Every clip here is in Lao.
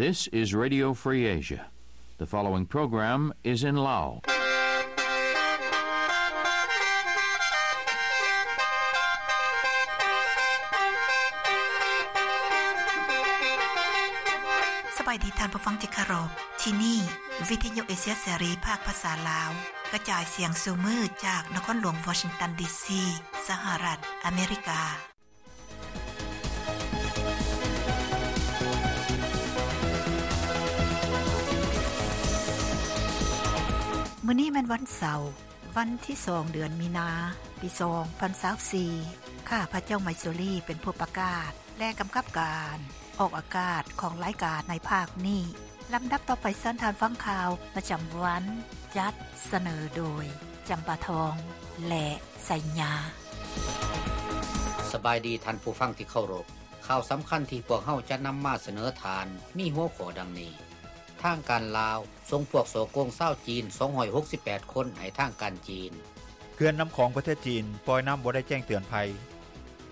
This is Radio Free Asia. The following program is in Lao. ສະບາຍດີທ່ານຜູ້ຟັງທີ່ເຄົາລົບ. ທີ່ນີ້ ວິທະຍຸເອເຊຍເສລີ ພາກພາສາລາວ ກະຈາຍສຽງສູ່ມື້ຈາກນະຄອນຫຼວງວໍຊິງຕັນ ດີຊີ ສະຫະລັດອາເມລິກາ. ມື້ນີ້ແມ່ນວັນເສົາ, ວັນທີສອງ ເດືອນມີນາ ປີສອງພັນຊາວສີ່. ຂ້າພະເຈົ້າ ໄມຊູລີ ເປັນຜູ້ປະກາດ ແລະ ກຳກັບການອອກອາກາດຂອງລາຍການໃນພາກນີ້. ລຳດັບຕໍ່ໄປເຊີນທ່ານຟັງຂ່າວປະຈຳວັນ ຈັດສະເໜີໂດຍ ຈຳປາທອງ ແລະ ໄຊຍາ. ສະບາຍດີທ່ານຜູ້ຟັງທີ່ເຄົາລົບ. ຂ່າວສຳຄັນທີ່ພວກເຮົາຈະນຳມາສະເໜີທ່ານມີຫົວຂໍ້ດັ່ງນີ້: ທາງການລາວສົ່ງພວກສໍ້ໂກງຊາວຈີນສອງຮ້ອຍຫົກສິບແປດຄົນໃຫ້ທາງການຈີນ. ເຂື່ອນນ້ຳຂອງປະເທດຈີນປ່ອຍນ້ຳບໍ່ໄດ້ແຈ້ງເຕືອນໄພ.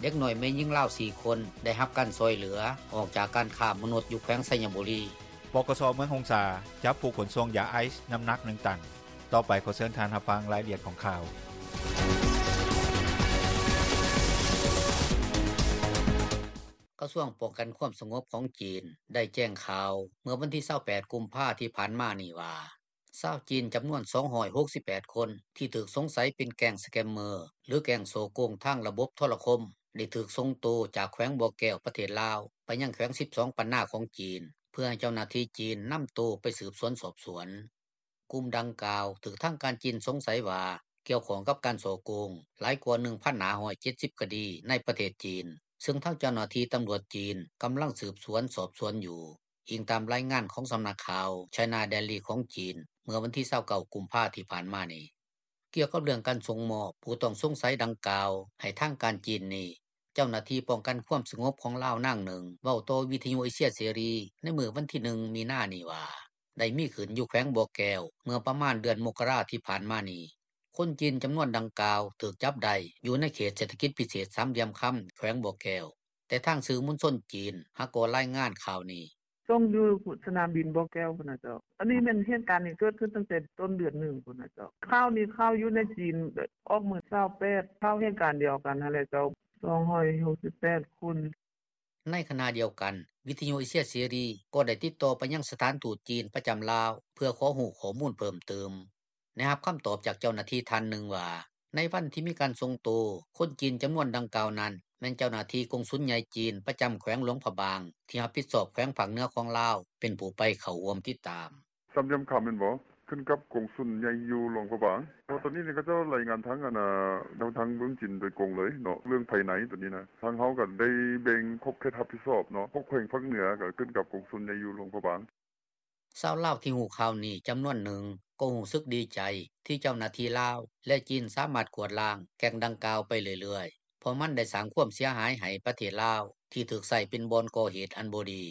ເດັກນ້ອຍແມ່ຍິງລາວສີ່ຄົນໄດ້ຮັບການຊ່ອຍເຫຼືອອອກຈາກການຄ້າມະນຸດຢູ່ແຂວງໄຊຍະບູລີ. ປກສ ເມືອງຫົງສາ ຈັບຜູ້ຂົນສົ່ງຢາໄອສ໌ນ້ຳໜັກໜຶ່ງຕັນ. ຕໍ່ໄປຂໍເຊີນທ່ານຮັບຟັງລາຍລະອຽດຂອງຂ່າວ. ກະຊວງປ້ອງກັນຄວາມສະຫງົບຂອງຈີນໄດ້ແຈ້ງຂ່າວເມື່ອວັນທີຊາວແປດ ກຸມພາທີ່ຜ່ານມານີ້ວ່າ ຊາວຈີນຈຳນວນສອງຮ້ອຍຫົກສິບແປດຄົນ ທີ່ຖືກສົງໄສເປັນແກ້ງສະແກມເມີ ຫຼື ແກ້ງສໍ້ໂກງທາງລະບົບໂທລະຄົມ ໄດ້ຖືກສົ່ງໂຕຈາກແຂວງບໍ່ແກ້ວ ປະເທດລາວ ໄປຍັງແຂວງສິບສອງ ປັນນາຂອງຈີນ ເພື່ອໃຫ້ເຈົ້າໜ້າທີ່ຈີນນຳໂຕໄປສືບສວນສອບສວນ. ກຸ່ມດັ່ງກ່າວຖືກທາງການຈີນສົງໄສວ່າ ກ່ຽວຂ້ອງກັບການສໍ້ໂກງຫຼາຍກວ່າໜຶ່ງພັນຫ້າຮ້ອຍເຈັດສິບຄະດີໃນປະເທດຈີນ, ເຊິ່ງທາງເຈົ້າໜ້າທີ່ຕຳຫຼວດຈີນກຳລັງສືບສວນສອບສວນຢູ່, ອີງຕາມລາຍງານຂອງສຳນັກຂ່າວ China Daily ຂອງຈີນ ເມື່ອວັນທີຊາວເກົ້າ ກຸມພາທີ່ຜ່ານມານີ້. ກ່ຽວກັບເລື່ອງການສົ່ງມອບຜູ້ຕ້ອງສົງໄສດັ່ງກ່າວໃຫ້ທາງການຈີນນີ້, ເຈົ້າໜ້າທີ່ປ້ອງກັນຄວາມສະຫງົບຂອງລາວນາງໜຶ່ງ ເວົ້າຕໍ່ວິທະຍຸເອເຊຍເສລີໃນມື້ວັນທີໜຶ່ງ ມີນານີ້ວ່າ ໄດ້ມີຂຶ້ນຢູ່ແຂວງບໍ່ແກ້ວ ເມື່ອປະມານເດືອນມົກກະລາທີ່ຜ່ານມານີ້. ຄົນຈີນຈຳນວນດັ່ງກ່າວຖືກຈັບໄດ້ຢູ່ໃນເຂດເສດຖະກິດພິເສດສາມຫຼ່ຽມຄຳ ແຂວງບໍ່ແກ້ວ, ແຕ່ທາງສື່ມວນຊົນຈີນຫາກໍລາຍງານຂ່າວນີ້. ສົ່ງຢູ່ສະໜາມບິນບໍ່ແກ້ວພຸ້ນນະເຈົ້າ. ອັນນີ້ແມ່ນເຫດການນີ້ເກີດຂຶ້ນຕັ້ງແຕ່ຕົ້ນເດືອນໜຶ່ງພຸ້ນນະເຈົ້າ. ຂ່າວນີ້ຂ່າວຢູ່ໃນຈີນ ອອກມື້ຊາວແປດ, ຂ່າວເຫດການດຽວກັນຫັ້ນແຫຼະເຈົ້າ, ສອງຮ້ອຍຫົກສິບແປດຄົນ. ໃນຂະນະດຽວກັນ, ວິທະຍຸເອເຊຍເສລີກໍໄດ້ຕິດຕໍ່ໄປຍັງສະຖານທູດຈີນປະຈຳລາວ ເພື່ອຂໍຮູ້ຂໍ້ມູນເພີ່ມຕື່ມ. ໄດ້ຮັບຄຳຕອບຈາກເຈົ້າໜ້າທີ່ທ່ານໜຶ່ງວ່າ ໃນວັນທີ່ມີການສົ່ງໂຕຄົນຈີນຈຳນວນດັ່ງກ່າວນັ້ນ ແມ່ນເຈົ້າໜ້າທີ່ກົງສຸນໃຫຍ່ຈີນປະຈຳແຂວງຫຼວງພະບາງ ທີ່ຮັບຜິດຊອບແຂວງພາກເໜືອຂອງລາວ ເປັນຜູ້ໄປເຂົ້າຮ່ວມຕິດຕາມ. ສາມຫຼ່ຽມຄຳແມ່ນບໍ່? ຂຶ້ນກັບກົງສຸນໃຫຍ່ຢູ່ຫຼວງພະບາງ. ເພາະຕອນນີ້ນີ້ເຂົາເຈົ້າລາຍງານທາງອັນນ່າ ທາງເມືອງຈີນໂດຍກົງເລີຍເນາະ ເລື່ອງພາຍໃນຕົວນີ້ນະ. ທາງເຮົາກໍໄດ້ແບ່ງຂອບເຂດຮັບຜິດຊອບເນາະ, ພວກແຂວງພາກເໜືອກໍຂຶ້ນກັບກົງສຸນໃຫຍ່ຢູ່ຫຼວງພະບາງ. ຊາວລາວທີ່ຮູ້ຂ່າວນີ້ຈຳນວນໜຶ່ງກໍຮູ້ສຶກດີໃຈທີ່ເຈົ້າໜ້າທີ່ລາວ ແລະ ຈີນສາມາດກວາດລ້າງແກ້ງດັ່ງກ່າວໄປເລື້ອຍໆ ເພາະມັນໄດ້ສ້າງຄວາມເສຍຫາຍໃຫ້ປະເທດລາວ ທີ່ຖືກໃຊ້ເປັນບ່ອນກໍ່ເຫດອັນບໍ່ດີ.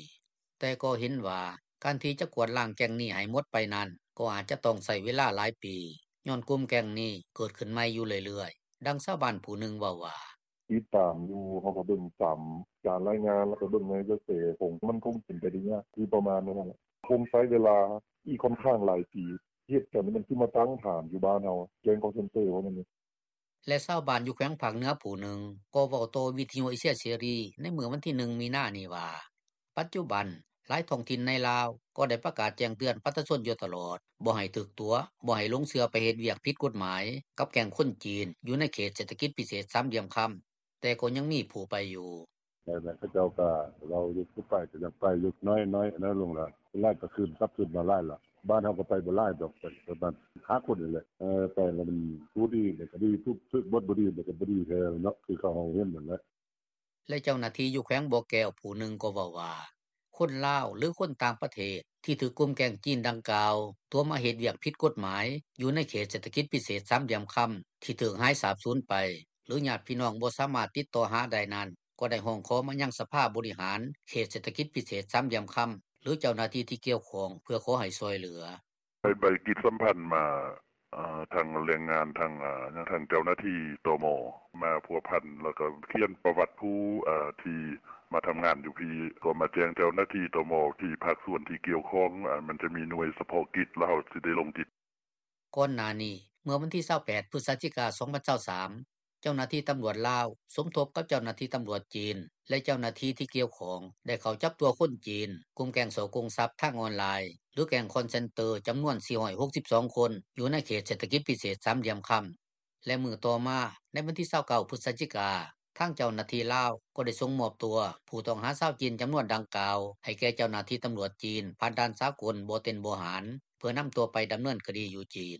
ແຕ່ກໍເຫັນວ່າການທີ່ຈະກວາດລ້າງແກ້ງນີ້ໃຫ້ໝົດໄປນັ້ນ ກໍອາດຈະຕ້ອງໃຊ້ເວລາຫຼາຍປີ ຍ້ອນກຸ່ມແກ້ງນີ້ເກີດຂຶ້ນໃໝ່ຢູ່ເລື້ອຍໆ. ດັ່ງຊາວບ້ານຜູ້ໜຶ່ງເວົ້າວ່າ. ຕິດຕາມຢູ່, ເຮົາກໍເບິ່ງຕາມການລາຍງານ ແລ້ວກໍເບິ່ງໃນກະແສຂອງ ມັນຄົງເປັນໄປໄດ້ຍາກ ຄືປະມານນັ້ນແຫຼະ. ຄົງໃຊ້ເວລາອີກຂ້ອນຂ້າງຫຼາຍປີ ເຮັດກັນມັນຄືມາຕັ້ງຖານຢູ່ບ້ານເຮົາ ແກ້ງຄໍເຊັນເຕີເວົ້າແນວນີ້. ແລະ ຊາວບ້ານຢູ່ແຂວງພາກເໜືອຜູ້ໜຶ່ງກໍເວົ້າຕໍ່ວິທະຍຸເອເຊຍເສລີໃນມື້ວັນທີໜຶ່ງ ມີນານີ້ວ່າ ປັດຈຸບັນ ຫຼາຍທ້ອງຖິ່ນໃນລາວກໍໄດ້ປະກາດແຈ້ງເຕືອນປະຊາຊົນຢູ່ຕະຫຼອດ ບໍ່ໃຫ້ຖືກຕົວະ, ບໍ່ໃຫ້ຫຼົງເຊື່ອໄປເຮັດວຽກຜິດກົດໝາຍກັບແກ້ງຄົນຈີນຢູ່ໃນເຂດເສດຖະກິດພິເສດສາມຫຼ່ຽມຄຳ, ແຕ່ກໍຍັງມີຜູ້ໄປຢູ່. ແມ່ນໆ ເຂົາເຈົ້າກໍເວົ້າຢູ່ ຜູ້ໄປກໍຢາກໄປຢູ່ ນ້ອຍໆ ນ້ອຍລົງແລ້ວ. ສ່ວນຫຼາຍກໍຄືນ ກັບຄືນມາຫຼາຍລະ. ບ້ານເຮົາກໍໄປບໍ່ຫຼາຍດອກ, ໄປປະມານຫ້າຄົນນີ້ແຫຼະ. ເອີ ໄປແລ້ວມັນຜູ້ດີແລ້ວກໍດີ, ຜູ້ຖືກບົດບໍ່ດີແລ້ວກໍບໍ່ດີແທ້ເນາະ, ຄືເຂົາເຮົາເຫັນນັ້ນແຫຼະ. ແລະ ເຈົ້າໜ້າທີ່ຢູ່ແຂວງບໍ່ແກ້ວຜູ້ໜຶ່ງກໍເວົ້າວ່າ ຄົນລາວ ຫຼື ຄົນຕ່າງປະເທດທີ່ຖືກກຸ່ມແກ້ງຈີນດັ່ງກ່າວຕົວະມາເຮັດວຽກຜິດກົດໝາຍຢູ່ໃນເຂດເສດຖະກິດພິເສດສາມຫຼ່ຽມຄຳ ທີ່ຖືກຫາຍສາບສູນໄປ ຫຼື ຍາດພີ່ນ້ອງບໍ່ສາມາດຕິດຕໍ່ຫາໄດ້ນັ້ນ ກໍໄດ້ຮ້ອງຂໍມາຍັງສະພາບໍລິຫານເຂດເສດຖະກິດພິເສດສາມຫຼ່ຽມຄຳ ຫຼື ເຈົ້າໜ້າທີ່ທີ່ກ່ຽວຂ້ອງ ເພື່ອຂໍໃຫ້ຊ່ວຍເຫຼືອ. ໃຫ້ໃບກິດສຳພັນມາ ທັງແຮງງານ ທັງເຈົ້າໜ້າທີ່ ຕມ ມາພົວພັນ ແລ້ວກໍຂຽນປະຫວັດຜູ້ທີ່ມາທຳງານຢູ່ພີ້ ກໍມາແຈ້ງເຈົ້າໜ້າທີ່ ຕມ ທີ່ພາກສ່ວນທີ່ກ່ຽວຂ້ອງ ມັນຈະມີໜ່ວຍສະເພາະກິດ ແລ້ວເຮົາຈະໄດ້ລົງຈິດ.” ກ່ອນໜ້ານີ້ ເມື່ອວັນທີ 28 ພຶສຈິກາ 2023 ເຈົ້າໜ້າທີ່ຕຳຫຼວດລາວ ສົມທົບກັບເຈົ້າໜ້າທີ່ຕຳຫຼວດຈີນ ແລະເຈົ້າໜ້າທີ່ທີ່ກ່ຽວຂ້ອງ ໄດ້ເຂົ້າຈັບຕົວຄົນຈີນ ກຸ່ມແກ້ງສໍ້ໂກງຊັບທາງອອນລາຍ ຫຼືແກ້ງ call center ຈຳນວນ 462 ຄົນ ຢູ່ໃນເຂດເສດຖະກິດພິເສດສາມຫຼ່ຽມຄຳ ແລະມື້ຕໍ່ມາ ໃນວັນທີ 29 ພຶສຈິກາ ທາງເຈົ້າໜ້າທີ່ລາວ ກໍໄດ້ສົ່ງມອບຕົວຜູ້ຕ້ອງຫາຊາວຈີນ ຈຳນວນດັ່ງກ່າວ ໃຫ້ແກ່ເຈົ້າໜ້າທີ່ຕຳຫຼວດຈີນ ຜ່ານດ່ານສາກົນບໍ່ເຕັນບໍ່ຫານ ເພື່ອນຳຕົວໄປດຳເນີນຄະດີຢູ່ຈີນ.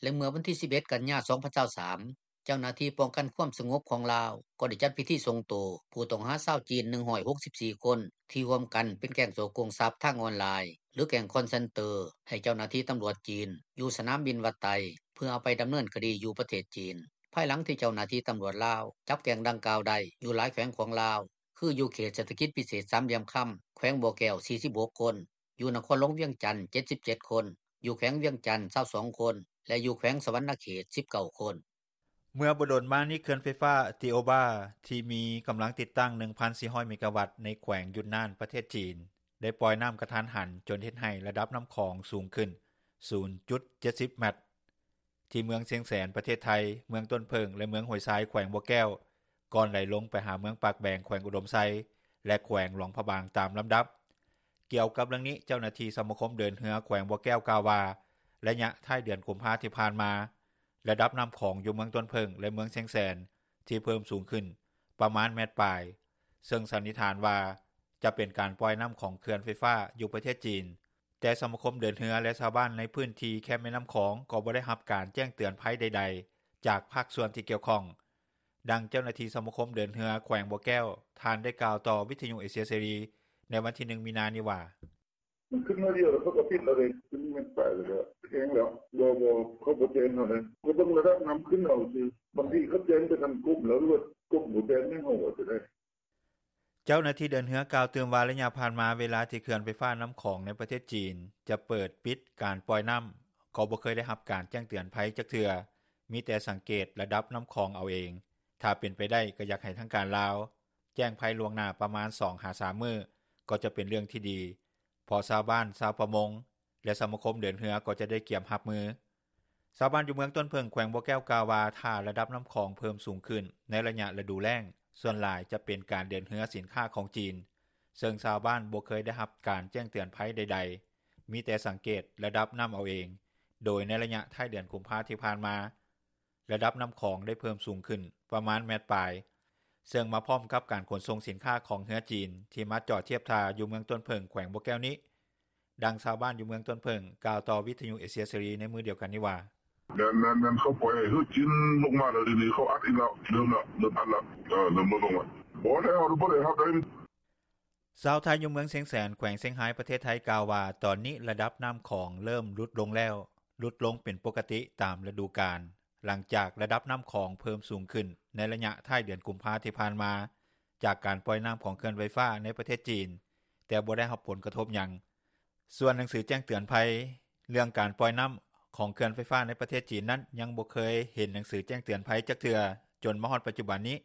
ແລະເມື່ອວັນທີ 11 ກັນຍາ 2023 ເຈົ້າໜ້າທີ່ປ້ອງກັນຄວາມສະຫງົບຂອງລາວ ກໍໄດ້ຈັດພິທີສົ່ງໂຕຜູ້ຕ້ອງຫາຊາວຈີນ 164 ຄົນ ທີ່ຮ່ວມກັນເປັນແກ້ງສໍ້ໂກງຊັບທາງອອນລາຍ ຫຼືແກ້ງ call center ໃຫ້ເຈົ້າໜ້າທີ່ຕຳຫຼວດຈີນ ຢູ່ສະໜາມບິນວັດໄຕ ເພື່ອເອົາໄປດຳເນີນຄະດີຢູ່ປະເທດຈີນ ພາຍຫຼັງທີ່ເຈົ້າໜ້າທີ່ຕຳຫຼວດລາວ ຈັບແກ້ງດັ່ງກ່າວໄດ້ ຢູ່ຫຼາຍແຂວງຂອງລາວ ຄືຢູ່ເຂດເສດຖະກິດພິເສດສາມຫຼ່ຽມຄຳ ແຂວງບໍ່ແກ້ວ 46 ຄົນ, ຢູ່ນະຄອນຫຼວງວຽງຈັນ 77 ຄົນ, ຢູ່ແຂວງວຽງຈັນ 22 ຄົນ ແລະຢູ່ແຂວງສະຫວັນນະເຂດ 19 ຄົນ. ເມື່ອບໍ່ດົນມານີ້ ເຂື່ອນໄຟຟ້າ Toba ທີ່ມີກຳລັງຕິດຕັ້ງ 1,400 ເມກາວັດ ໃນແຂວງຢຸນນານ ປະເທດຈີນ ໄດ້ປ່ອຍນໍ້າກະທັນຫັນ ຈົນເຮັດໃຫ້ລະດັບນໍ້າຂອງສູງຂຶ້ນ 0.70 ແມັດ. ທີ່ເມືອງຊຽງແສນ ປະເທດໄທ, ເມືອງຕົ້ນເຜິ້ງ ແລະເມືອງຫ້ວຍຊາຍ ແຂວງບໍ່ແກ້ວ ກ່ອນໄຫຼລົງໄປຫາເມືອງປາກແບງ ແຂວງອຸດົມໄຊ ແລະແຂວງຫຼວງພະບາງຕາມລຳດັບ. ກ່ຽວກັບເລື່ອງນີ້ ເຈົ້າໜ້າທີ່ສະມາຄົມເດີນເຮືອແຂວງບໍ່ແກ້ວກ່າວວ່າ ໄລຍະທ້າຍເດືອນກຸມພາທີ່ຜ່ານມາ ລະດັບນໍ້າຂອງຢູ່ເມືອງຕົ້ນເຜິ້ງ ແລະເມືອງຊຽງແສນ ທີ່ເພີ່ມສູງຂຶ້ນປະມານແມັດປາຍ ເຊິ່ງສັນນິຖານວ່າ ຈະເປັນການປ່ອຍນໍ້າຂອງເຂື່ອນໄຟຟ້າຢູ່ປະເທດຈີນ. ແຕ່ສະມາຄົມເດີນເຮືອ ແລະຊາວບ້ານໃນພື້ນທີ່ແຄມແມ່ນໍ້າຂອງ ກໍບໍ່ໄດ້ຮັບການແຈ້ງເຕືອນໄພໃດໆ ຈາກພາກສ່ວນທີ່ກ່ຽວຂ້ອງ. ດັ່ງເຈົ້າໜ້າທີ່ສະມາຄົມເດີນເຮືອແຂວງບໍ່ແກ້ວ ທ່ານໄດ້ກ່າວຕໍ່ວິທຍຸເອເຊຍເສລີ ໃນວັນທີ 1 ມີນານີ້ວ່າ: “ມັນຂຶ້ນໜ້ອຍດຽວ ແລ້ວເຂົາກໍປິດແລ້ວເດ້ ຂຶ້ນແມັດປາຍແລ້ວ ແຮງແລ້ວ ບໍ່ໆ ເຂົາບໍ່ແຈ້ງເຮົາເດ້ ກໍເບິ່ງລະດັບນໍ້າຂຶ້ນເອົາຊື່ ບາງທີເຂົາແຈ້ງໄປທາງກົມແລ້ວ ຫຼືວ່າກົມບໍ່ແຈ້ງໃຫ້ເຮົາ ວ່າຈັ່ງໃດ.” ເຈົ້າໜ້າທີ່ເດີນເຮືອກ່າວຕື່ມວ່າ ໄລຍະຜ່ານມາ ເວລາທີ່ເຂື່ອນໄຟຟ້ານໍ້າຂອງໃນປະເທດຈີນ ຈະເປີດ-ປິດການປ່ອຍນໍ້າ ກໍບໍ່ເຄີຍໄດ້ຮັບການແຈ້ງເຕືອນໄພຈັກເທື່ອ ມີແຕ່ສັງເກດລະດັບນໍ້າຂອງເອົາເອງ. ຖ້າເປັນໄປໄດ້ ກໍຢາກໃຫ້ທາງການລາວ ແຈ້ງໄພລ່ວງໜ້າປະມານ 2-3 ມື້ ກໍຈະເປັນເລື່ອງທີ່ດີ ເພາະຊາວບ້ານ, ຊາວປະມົງ ແລະສະມາຄົມເດີນເຮືອ ກໍຈະໄດ້ກຽມຮັບມື. ຊາວບ້ານຢູ່ເມືອງຕົ້ນເຜິ້ງ ແຂວງບໍ່ແກ້ວກ່າວວ່າ ຖ້າລະດັບນໍ້າຂອງເພີ່ມສູງຂຶ້ນ ໃນໄລຍະລະດູແລ້ງ ສ່ວນຫຼາຍຈະເປັນການເດີນເຮືອສິນຄ້າຂອງຈີນ ເຊິ່ງຊາວບ້ານບໍ່ເຄີຍໄດ້ຮັບການແຈ້ງເຕືອນໄພໃດໆ ມີແຕ່ສັງເກດລະດັບນໍ້າເອົາເອງ ໂດຍໃນໄລຍະທ້າຍເດືອນກຸມພາທີ່ຜ່ານມາ ລະດັບນໍ້າຂອງໄດ້ເພີ່ມສູງຂຶ້ນປະມານແມັດປາຍ ເຊິ່ງມາພ້ອມກັບການຂົນສົ່ງສິນຄ້າຂອງເຮືອຈີນ ທີ່ມາຈອດທຽບທ່າຢູ່ເມືອງຕົ້ນເຜິ້ງ ແຂວງບໍ່ແກ້ວນີ້. ດັ່ງຊາວບ້ານຢູ່ເມືອງຕົ້ນເຜິ້ງ ກ່າວຕໍ່ວິທຍຸເອເຊຍເສລີໃນມື້ດຽວກັນນີ້ວ່າ: “ແມ່ນໆໆ ເຂົາປ່ອຍໃຫ້ເຮືອຈີນລົງມາແລ້ວ ດຽວນີ້ເຂົາອັດອີກແລ້ວ ເລີ່ມແລ້ວ ເລີ່ມອັດແລ້ວ ເອີ ເລີ່ມລົດລົງແລ້ວ ບໍ່ແລ້ວ ບໍ່ໄດ້ຮັບໃດ.” ຊາວໄທຢູ່ເມືອງຊຽງແສນ ແຂວງຊຽງຮາຍ ປະເທດໄທ ກ່າວວ່າ ຕອນນີ້ລະດັບນໍ້າຂອງເລີ່ມຫຼຸດລົງແລ້ວ ຫຼຸດລົງເປັນປົກກະຕິຕາມລະດູການ ຫຼັງຈາກລະດັບນໍ້າຂອງເພີ່ມສູງຂຶ້ນ ໃນໄລຍະທ້າຍເດືອນກຸມພາທີ່ຜ່ານມາ ຈາກການປ່ອຍນໍ້າຂອງເຂື່ອນໄຟຟ້າໃນປະເທດຈີນ ແຕ່ບໍ່ໄດ້ຮັບຜົນກະທົບຫຍັງ. ສ່ວນໜັງສືແຈ້ງເຕືອນໄພ ເລື່ອງການປ່ອຍນໍ້າຂອງເຂື່ອນໄຟຟ້າໃນປະເທດຈີນນັ້ນ ຍັງບໍ່ເຄີຍເຫັນໜັງສືແຈ້ງເຕືອນໄພຈັກເທື່ອ ຈົນມາຮອດປັດຈຸບັນນີ້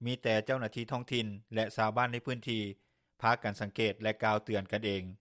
ມີແຕ່ເຈົ້າໜ້າທີ່ທ້ອງຖິ່ນ ແລະຊາວບ້ານໃນພື້ນທີ່ ພາກັນສັງເກດ ແລະກ່າວເຕືອນກັນເອງ.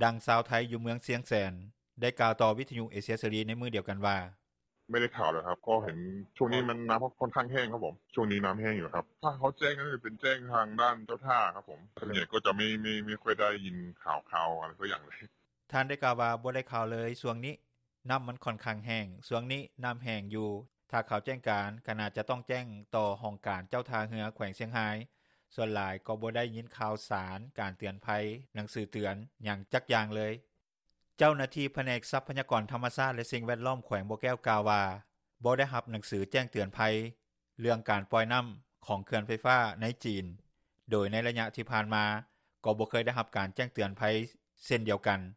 ດັ່ງຊາວໄທຢູ່ເມືອງຊຽງແສນ ໄດ້ກ່າວຕໍ່ວິທຍຸເອເຊຍເສລີໃນມື້ດຽວກັນວ່າ: “ໄມ່ໄດ້ຂ່າວເລີຍຄັບ ກໍເຫັນຊ່ວງນີ້ນໍ້າຂ້ອນຂ້າງແຫ້ງຄັບຜົມ ຊ່ວງນີ້ນໍ້າແຫ້ງຢູ່ຄັບ ຖ້າເຂົາແຈ້ງກໍຈະເປັນແຈ້ງທາງດ້ານເຈົ້າທ່າຄັບຜົມ ສ່ວນໃຫຍ່ກໍຈະໄມ່ ໄມ່ຄ່ອຍໄດ້ຍິນຂ່າວຄາວຫຍັງເລີຍ.” ທ່ານໄດ້ກ່າວວ່າ ບໍ່ໄດ້ຂ່າວເລີຍຊ່ວງນີ້ ນໍ້າມັນຂ້ອນຂ້າງແຫ້ງ ຊ່ວງນີ້ນໍ້າແຫ້ງຢູ່ ຖ້າເຂົາແຈ້ງການ ກໍໜ້າຈະຕ້ອງແຈ້ງຕໍ່ຫ້ອງການເຈົ້າທ່າເຮືອແຂວງຊຽງຮາຍ ສ່ວນຫຼາຍກໍບໍ່ໄດ້ຍິນຂ່າວສານການເຕືອນໄພ ໜັງສືເຕືອນຫຍັງຈັກຢ່າງເລີຍ. ເຈົ້າໜ້າທີ່ພະແນກຊັບພະຍາກອນທຳມະຊາດ ແລະສິ່ງແວດລ້ອມ ແຂວງບໍ່ແກ້ວກ່າວວ່າ ບໍ່ໄດ້ຮັບໜັງສືແຈ້ງເຕືອນໄພ ເລື່ອງການປ່ອຍນໍ້າຂອງເຂື່ອນໄຟຟ້າໃນຈີນ ໂດຍໃນໄລຍະທີ່ຜ່ານມາ ກໍບໍ່ເຄີຍໄດ້ຮັບການແຈ້ງເຕືອນໄພເຊັ່ນດຽວກັນ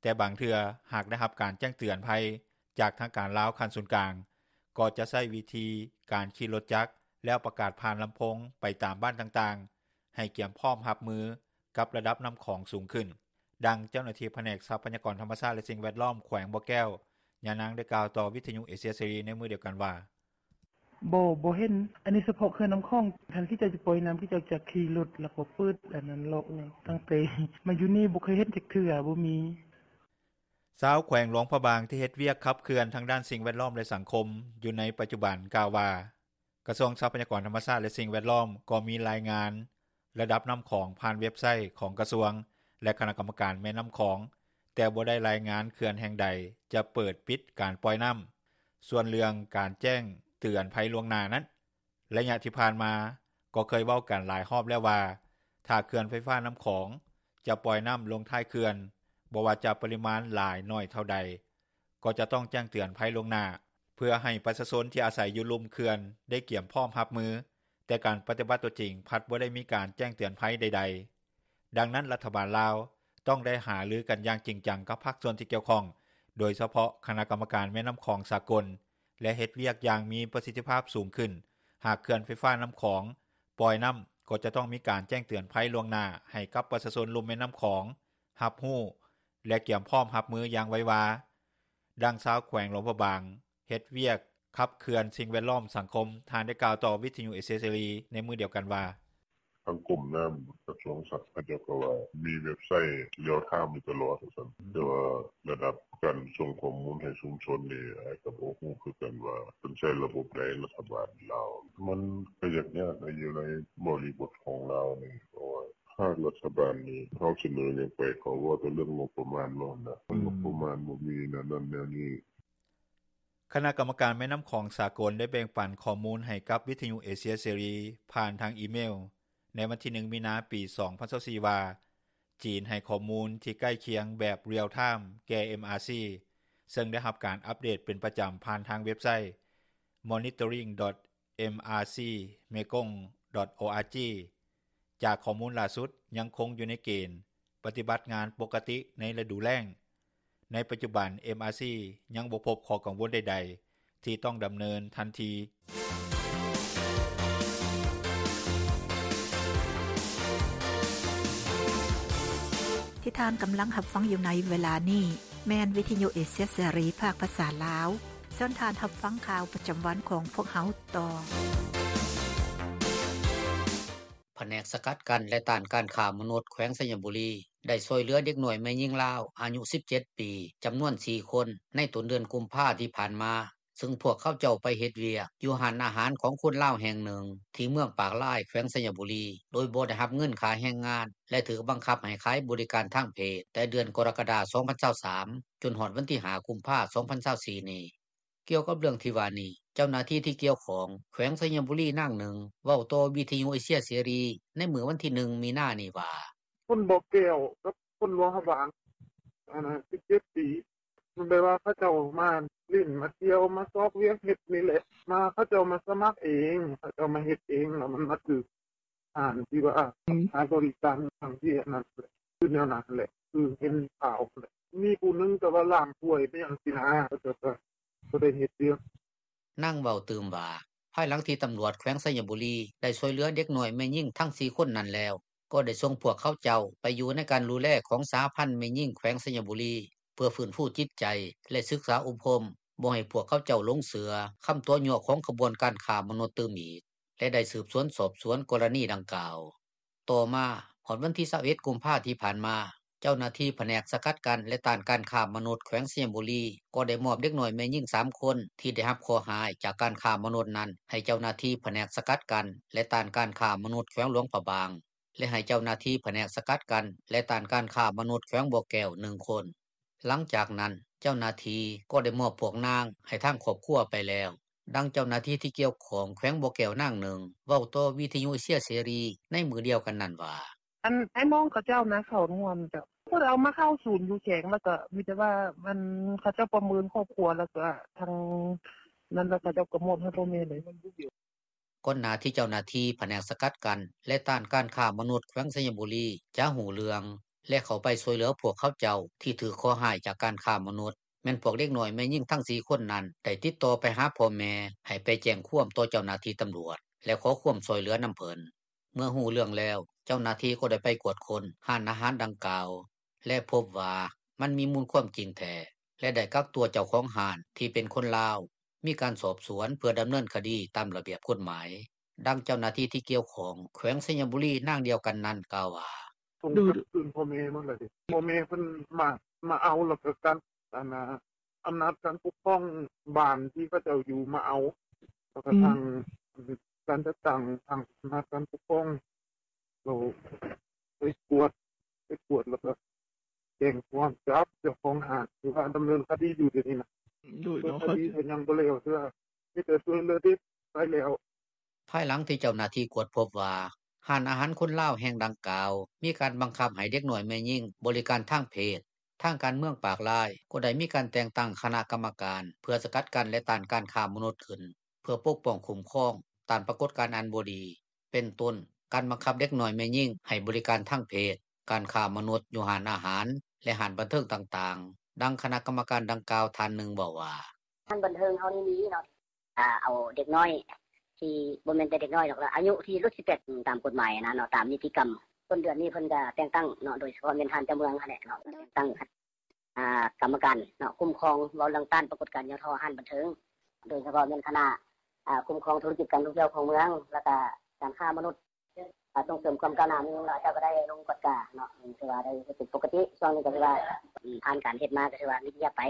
ແຕ່ບາງເທື່ອຫາກໄດ້ຮັບການແຈ້ງເຕືອນໄພ ຈາກທາງການລາວຂັ້ນສູນກາງ ກໍຈະໃຊ້ວິທີການຂີ່ລົດຈັກ ແລ້ວປະກາດຜ່ານລຳໂພງໄປຕາມບ້ານຕ່າງໆ ໃຫ້ກຽມພ້ອມຮັບມືກັບລະດັບນໍ້າຂອງສູງຂຶ້ນ. ດັ່ງເຈົ້າໜ້າທີ່ພະແນກຊັບພະຍາກອນທຳມະຊາດ ແລະສິ່ງແວດລ້ອມ ແຂວງບໍ່ແກ້ວ ຍານາງໄດ້ກ່າວຕໍ່ວິທຍຸເອເຊຍເສລີໃນມື້ດຽວກັນວ່າ: ບໍ່ ບໍ່ເຫັນ ອັນນີ້ສະເພາະເຂື່ອນນ້ຳຂອງ ຄັນເຂົາເຈົ້າຈະປ່ອຍນ້ຳ ເຂົາເຈົ້າຈະຂີ່ລົດ ແລ້ວກໍເປີດອັນນັ້ນເລາະເລີຍ ຕັ້ງແຕ່ມາຢູ່ນີ້ບໍ່ເຄີຍເຫັນຈັກເທື່ອ ບໍ່ມີ. ຊາວແຂວງຫຼວງພະບາງທີ່ເຮັດວຽກຂັບເຄື່ອນທາງດ້ານສິ່ງແວດລ້ອມ ແລະສັງຄົມຢູ່ໃນປັດຈຸບັນກ່າວວ່າ ກະຊວງຊັບພະຍາກອນທຳມະຊາດ ແລະສິ່ງແວດລ້ອມກໍມີລາຍງານລະດັບນ້ຳຂອງຜ່ານເວັບໄຊຂອງກະຊວງ ແລະຄະນະກຳມະການແມ່ນ້ຳຂອງ ແຕ່ບໍ່ໄດ້ລາຍງານເຂື່ອນແຫ່ງໃດຈະເປີດ-ປິດການປ່ອຍນ້ຳ. ສ່ວນເລື່ອງການແຈ້ງເຕືອນໄພລ່ວງໜ້ານັ້ນ ໄລຍະທີ່ຜ່ານມາກໍເຄີຍເວົ້າກັນຫຼາຍຮອບແລ້ວວ່າ ຖ້າເຂື່ອນໄຟຟ້ານ້ຳຂອງຈະປ່ອຍນ້ຳລົງທ້າຍເຂື່ອນ ບໍ່ວ່າຈະປະລິມານຫຼາຍໜ້ອຍເທົ່າໃດ ກໍຈະຕ້ອງແຈ້ງເຕືອນໄພລ່ວງໜ້າ ເພື່ອໃຫ້ປະຊາຊົນທີ່ອາໄສຢູ່ລຸ່ມເຂື່ອນໄດ້ກຽມພ້ອມຮັບມື, ແຕ່ການປະຕິບັດຕົວຈິງພັດບໍ່ໄດ້ມີການແຈ້ງເຕືອນໄພໃດໆ. ດັ່ງນັ້ນ ລັດຖະບານລາວຕ້ອງໄດ້ຫາລືກັນຢ່າງຈິງຈັງກັບພາກສ່ວນທີ່ກ່ຽວຂ້ອງ, ໂດຍສະເພາະຄະນະກຳມະການແມ່ນ້ຳຂອງສາກົນ ແລະເຮັດວຽກຢ່າງມີປະສິດທິພາບສູງຂຶ້ນ. ຫາກເຂື່ອນໄຟຟ້ານ້ຳຂອງປ່ອຍນ້ຳ ກໍຈະຕ້ອງມີການແຈ້ງເຕືອນໄພລ່ວງໜ້າໃຫ້ກັບປະຊາຊົນລຸ່ມແມ່ນ້ຳຂອງຮັບຮູ້ ແລະກຽມພ້ອມຮັບມືຢ່າງໄວວາ. ດັ່ງຊາວແຂວງຫຼວງພະບາງ ເຮັດວຽກຂັບເຄື່ອນສິ່ງແວດລ້ອມສັງຄົມ ທ່ານໄດ້ກ່າວຕໍ່ວິທຍຸເອເຊຍເສລີໃນມື້ດຽວກັນວ່າ: ທາງກົມນ້ຳ ກະຊວງຊັບ ເຂົາເຈົ້າກໍວ່າມີເວັບໄຊລຽວທາມຢູ່ຕະຫຼອດວ່າຊັ້ນ ແຕ່ວ່າລະດັບການສົ່ງຂໍ້ມູນໃຫ້ຊຸມຊົນນີ້ ອ້າຍກໍບໍ່ຮູ້ຄືກັນວ່າເພິ່ນໃຊ້ລະບົບໃດ ລັດຖະບານລາວ. ມັນກໍຍາກໆ ຢູ່ໃນບໍລິບົດຂອງລາວນີ້ ເພາະວ່າພາກລັດຖະບານນີ້ ເຮົາສະເໜີຫຍັງໄປ ເຂົາເວົ້າແຕ່ເລື່ອງງົບປະມານເນາະ ມັນງົບປະມານບໍ່ມີແນວນັ້ນແນວນີ້. ຄະນະກຳມະການແມ່ນ້ຳຂອງສາກົນໄດ້ແບ່ງປັນຂໍ້ມູນໃຫ້ກັບວິທຍຸເອເຊຍເສລີ ຜ່ານທາງອີເມວໃນວັນທີໜຶ່ງ ມີນາ ປີສອງພັນຊາວສີ່ ວ່າ ຈີນໃຫ້ຂໍ້ມູນທີ່ໃກ້ຄຽງແບບ real time ແກ່ MRC ເຊິ່ງໄດ້ຮັບການອັບເດດເປັນປະຈຳຜ່ານທາງເວັບໄຊ monitoring dot mrcmekong dot org. ຈາກຂໍ້ມູນລ່າສຸດຍັງຄົງຢູ່ໃນເກນປະຕິບັດງານປົກກະຕິໃນລະດູແລ້ງ. ໃນປັດຈຸບັນ MRC ຍັງບໍ່ພົບຂໍ້ກັງວົນໃດໆ ທີ່ຕ້ອງດຳເນີນທັນທີ. ທີ່ທ່ານກຳລັງຮັບຟັງຢູ່ໃນເວລານີ້ ແມ່ນວິທຍຸເອເຊຍເສລີ ພາກພາສາລາວ. ເຊີນທ່ານຮັບຟັງຂ່າວປະຈຳວັນຂອງພວກເຮົາຕໍ່. ພະແນກສະກັດກັ້ນ ແລະ ຕ້ານການຄ້າມະນຸດ ແຂວງໄຊຍະບູລີ ໄດ້ຊ່ວຍເຫຼືອເດັກນ້ອຍແມ່ຍິງລາວ ອາຍຸສິບເຈັດປີ ຈຳນວນສີ່ຄົນ ໃນຕົ້ນເດືອນກຸມພາທີ່ຜ່ານມາ, ເຊິ່ງພວກເຂົາເຈົ້າໄປເຮັດວຽກຢູ່ຮ້ານອາຫານຂອງຄົນລາວແຫ່ງໜຶ່ງ ທີ່ເມືອງປາກລາຍ ແຂວງໄຊຍະບູລີ ໂດຍບໍ່ໄດ້ຮັບເງິນຄ່າແຮງງານ ແລະ ຖືກບັງຄັບໃຫ້ຂາຍບໍລິການທາງເພດ ແຕ່ເດືອນກໍລະກະດາ ສອງພັນຊາວສາມ ຈົນຮອດວັນທີຫ້າ ກຸມພາ ສອງພັນຊາວສີ່ນີ້. ກ່ຽວກັບເລື່ອງທີ່ວ່ານີ້, ເຈົ້າໜ້າທີ່ທີ່ກ່ຽວຂ້ອງ ແຂວງໄຊຍະບູລີ ນາງໜຶ່ງ ເວົ້າຕໍ່ວິທຍຸເອເຊຍເສລີ ໃນມື້ວັນທີໜຶ່ງ ມີນານີ້ວ່າ: ຄົນບໍ່ແກ້ວກັບຄົນຫຼວງພະບາງ ອັນນັ້ນສິບເຈັດປີ ມັນແບບວ່າເຂົາເຈົ້າມາຫຼິ້ນ ມາທ່ຽວ ມາຊອກວຽກເຮັດນີ້ແຫຼະ ມາ ເຂົາເຈົ້າມາສະໝັກເອງ ເຂົາເຈົ້າມາເຮັດເອງ ແລ້ວມັນມາຖືກ ຮ້ານທີ່ວ່າ ອືມ ຂາຍບໍລິການທາງເພດນັ້ນແຫຼະ ຄືແນວນັ້ນແຫຼະ ຄືເຫັນຂ່າວຫັ້ນແຫຼະ ມີຜູ້ໜຶ່ງແຕ່ວ່າລ້າງຖ້ວຍໄປຫຍັງຊີ້ນະ ເຂົາເຈົ້າກໍບໍ່ໄດ້ເຮັດວຽກ. ນາງເວົ້າຕື່ມວ່າ ພາຍຫຼັງທີ່ຕຳຫຼວດແຂວງໄຊຍະບູລີ ໄດ້ຊ່ວຍເຫຼືອເດັກນ້ອຍແມ່ຍິງທັງສີ່ຄົນນັ້ນແລ້ວ ກໍໄດ້ສົ່ງພວກເຂົາເຈົ້າໄປຢູ່ໃນການດູແລຂອງສະຫະພັນແມ່ຍິງແຂວງໄຊຍະບູລີ ເພື່ອຟື້ນຟູຈິດໃຈ ແລະ ສຶກສາອົບຮົມ ບໍ່ໃຫ້ພວກເຂົາເຈົ້າຫຼົງເຊື່ອຄຳຕົວະຍົວະຂອງຂະບວນການຄ້າມະນຸດຕື່ມອີກ ແລະ ໄດ້ສືບສວນສອບສວນກໍລະນີດັ່ງກ່າວ. ຕໍ່ມາ ຮອດວັນທີຊາວເອັດ ກຸມພາທີ່ຜ່ານມາ, ເຈົ້າໜ້າທີ່ພະແນກສະກັດກັ້ນ ແລະ ຕ້ານການຄ້າມະນຸດແຂວງໄຊຍະບູລີ ກໍໄດ້ມອບເດັກນ້ອຍແມ່ຍິງສາມຄົນ ທີ່ໄດ້ຮັບເຄາະຮ້າຍຈາກການຄ້າມະນຸດນັ້ນ ໃຫ້ເຈົ້າໜ້າທີ່ພະແນກສະກັດກັ້ນ ແລະ ຕ້ານການຄ້າມະນຸດແຂວງຫຼວງພະບາງ ແລະ ໃຫ້ເຈົ້າໜ້າທີ່ພະແນກສະກັດກັ້ນ ແລະ ຕ້ານການຄ້າມະນຸດແຂວງບໍ່ແກ້ວໜຶ່ງຄົນ. ຫຼັງຈາກນັ້ນ ເຈົ້າໜ້າທີ່ກໍໄດ້ມອບພວກນາງໃຫ້ທາງຄອບຄົວໄປແລ້ວ. ດັ່ງເຈົ້າໜ້າທີ່ທີ່ກ່ຽວຂ້ອງແຂວງບໍ່ແກ້ວນາງໜຶ່ງ ເວົ້າຕໍ່ວິທຍຸເອເຊຍເສລີໃນມື້ດຽວກັນນັ້ນວ່າ: ອັນອ້າຍນ້ອງເຂົາເຈົ້ານະ ເຂົາຮ່ວມເຈົ້າ ເພິ່ນເອົາມາເຂົ້າສູນຢູ່ແຂວງ ແລ້ວກໍມີແຕ່ວ່າ ອັນ ເຂົາເຈົ້າປະເມີນຄອບຄົວ ແລ້ວກໍທາງນັ້ນ ແລ້ວເຂົາເຈົ້າກໍມອບໃຫ້ພໍ່ແມ່ເລີຍ. ກ່ອນໜ້າທີ່ເຈົ້າໜ້າທີ່ພະແນກສະກັດກັ້ນ ແລະ ຕ້ານການຄ້າມະນຸດແຂວງໄຊຍະບູລີ ຈະຮູ້ເລື່ອງ ແລະ ເຂົ້າໄປຊ່ວຍເຫຼືອພວກເຂົາເຈົ້າທີ່ຖືກເຄາະຮ້າຍຈາກການຄ້າມະນຸດ ແມ່ນພວກເດັກນ້ອຍແມ່ຍິງທັງສີ່ຄົນນັ້ນ ໄດ້ຕິດຕໍ່ໄປຫາພໍ່ແມ່ ໃຫ້ໄປແຈ້ງຄວາມຕໍ່ເຈົ້າໜ້າທີ່ຕຳຫຼວດ ແລະ ຂໍຄວາມຊ່ວຍເຫຼືອນຳເພິ່ນ. ເມື່ອຮູ້ເລື່ອງແລ້ວ ເຈົ້າໜ້າທີ່ກໍໄດ້ໄປກວດຄົ້ນຮ້ານອາຫານດັ່ງກ່າວ ແລະ ພົບວ່າມັນມີມູນຄວາມຈິງແທ້. ແລະໄດ້ກັກຕົວເຈົ້າຂອງຮ້ານ ທີ່ເປັນຄົນລາວ ມີການສອບສວນ ເພື່ອດຳເນີນຄະດີຕາມລະບຽບກົດໝາຍ. ດັ່ງເຈົ້າໜ້າທີ່ທີ່ກ່ຽວຂ້ອງ ແຂວງໄຊຍະບູລີ ນາງດຽວກັນນັ້ນກ່າວວ່າ: “ສົ່ງກັບຄືນພໍ່ແມ່ໝົດແລ້ວເດ໋ ພໍ່ແມ່ເພິ່ນມາເອົາ ແລ້ວກໍການ ອຳນາດການປົກຄອງບ້ານທີ່ເຂົາເຈົ້າຢູ່ມາເອົາ ແລ້ວກໍທາງການຈັດຕັ້ງ ທາງອຳນາດການປົກຄອງ ເຂົາໄປກວດ ໄປກວດແລ້ວກໍແຈ້ງຄວາມຈັບເຈົ້າຂອງຮ້ານ ຖືວ່າດຳເນີນຄະດີຢູ່ດຽວນີ້ນະ ໂດຍ ຄະດີກໍຍັງບໍ່ແລ້ວເທື່ອ ມີແຕ່ຊ່ວຍເຫຼືອເດັກໄປແລ້ວ.” ພາຍຫຼັງທີ່ເຈົ້າໜ້າທີ່ກວດພົບວ່າ ຮ້ານອາຫານຄົນລາວແຫ່ງດັ່ງກ່າວ ມີການບັງຄັບໃຫ້ເດັກນ້ອຍແມ່ຍິງ ບໍລິການທາງເພດ, ທາງການເມືອງປາກລາຍ ກໍໄດ້ມີການແຕ່ງຕັ້ງຄະນະກຳມະການ ເພື່ອສະກັດກັ້ນ ແລະ ຕ້ານການຄ້າມະນຸດຂຶ້ນ ເພື່ອປົກປ້ອງຄຸ້ມຄອງ ຕ້ານປາກົດການອັນບໍ່ດີ ເປັນຕົ້ນ ການບັງຄັບເດັກນ້ອຍແມ່ຍິງ ໃຫ້ບໍລິການທາງເພດ, ການຄ້າມະນຸດຢູ່ຮ້ານອາຫານ ແລະ ຮ້ານບັນເທີງຕ່າງໆ. ດັ່ງຄະນະກຳມະການດັ່ງກ່າວທ່ານໜຶ່ງເວົ້າວ່າ: “ຮ້ານບັນເທີງເຮົານີ້ມີເນາະ ເອົາເດັກນ້ອຍ ທີ່ບໍ່ແມ່ນແຕ່ເດັກນ້ອຍດອກ ອາຍຸທີ່ຫຼຸດສິບແປດ ຕາມກົດໝາຍຫັ້ນນະເນາະ ຕາມນິຕິກຳ ຕົ້ນເດືອນນີ້ເພິ່ນກໍແຕ່ງຕັ້ງເນາະ ໂດຍສະເພາະແມ່ນທ່ານເຈົ້າເມືອງຫັ້ນແຫຼະເນາະ ແຕ່ງຕັ້ງ ອາ ກຳມະການເນາະ ຄຸ້ມຄອງ ເວົ້າເລື່ອງຕ້ານປາກົດການຫຍໍ້ທໍ້ຮ້ານບັນເທີງ ໂດຍສະເພາະແມ່ນຄະນະ ອາ ຄຸ້ມຄອງທຸລະກິດການທ່ອງທ່ຽວຂອງເມືອງ ແລ້ວກະການຄ້າມະນຸດ ອາ ສົ່ງເສີມຄວາມກ້າວໜ້າເມືອງ ເຂົາເຈົ້າກໍໄດ້ລົງກວດກາເນາະ ຖືວ່າໄດ້ເຮັດເປັນປົກກະຕິ ຊ່ວງນີ້ກໍຖືວ່າ ອືມ ຜ່ານການເຮັດມາກໍຖືວ່າມີລະຍະໄປ.”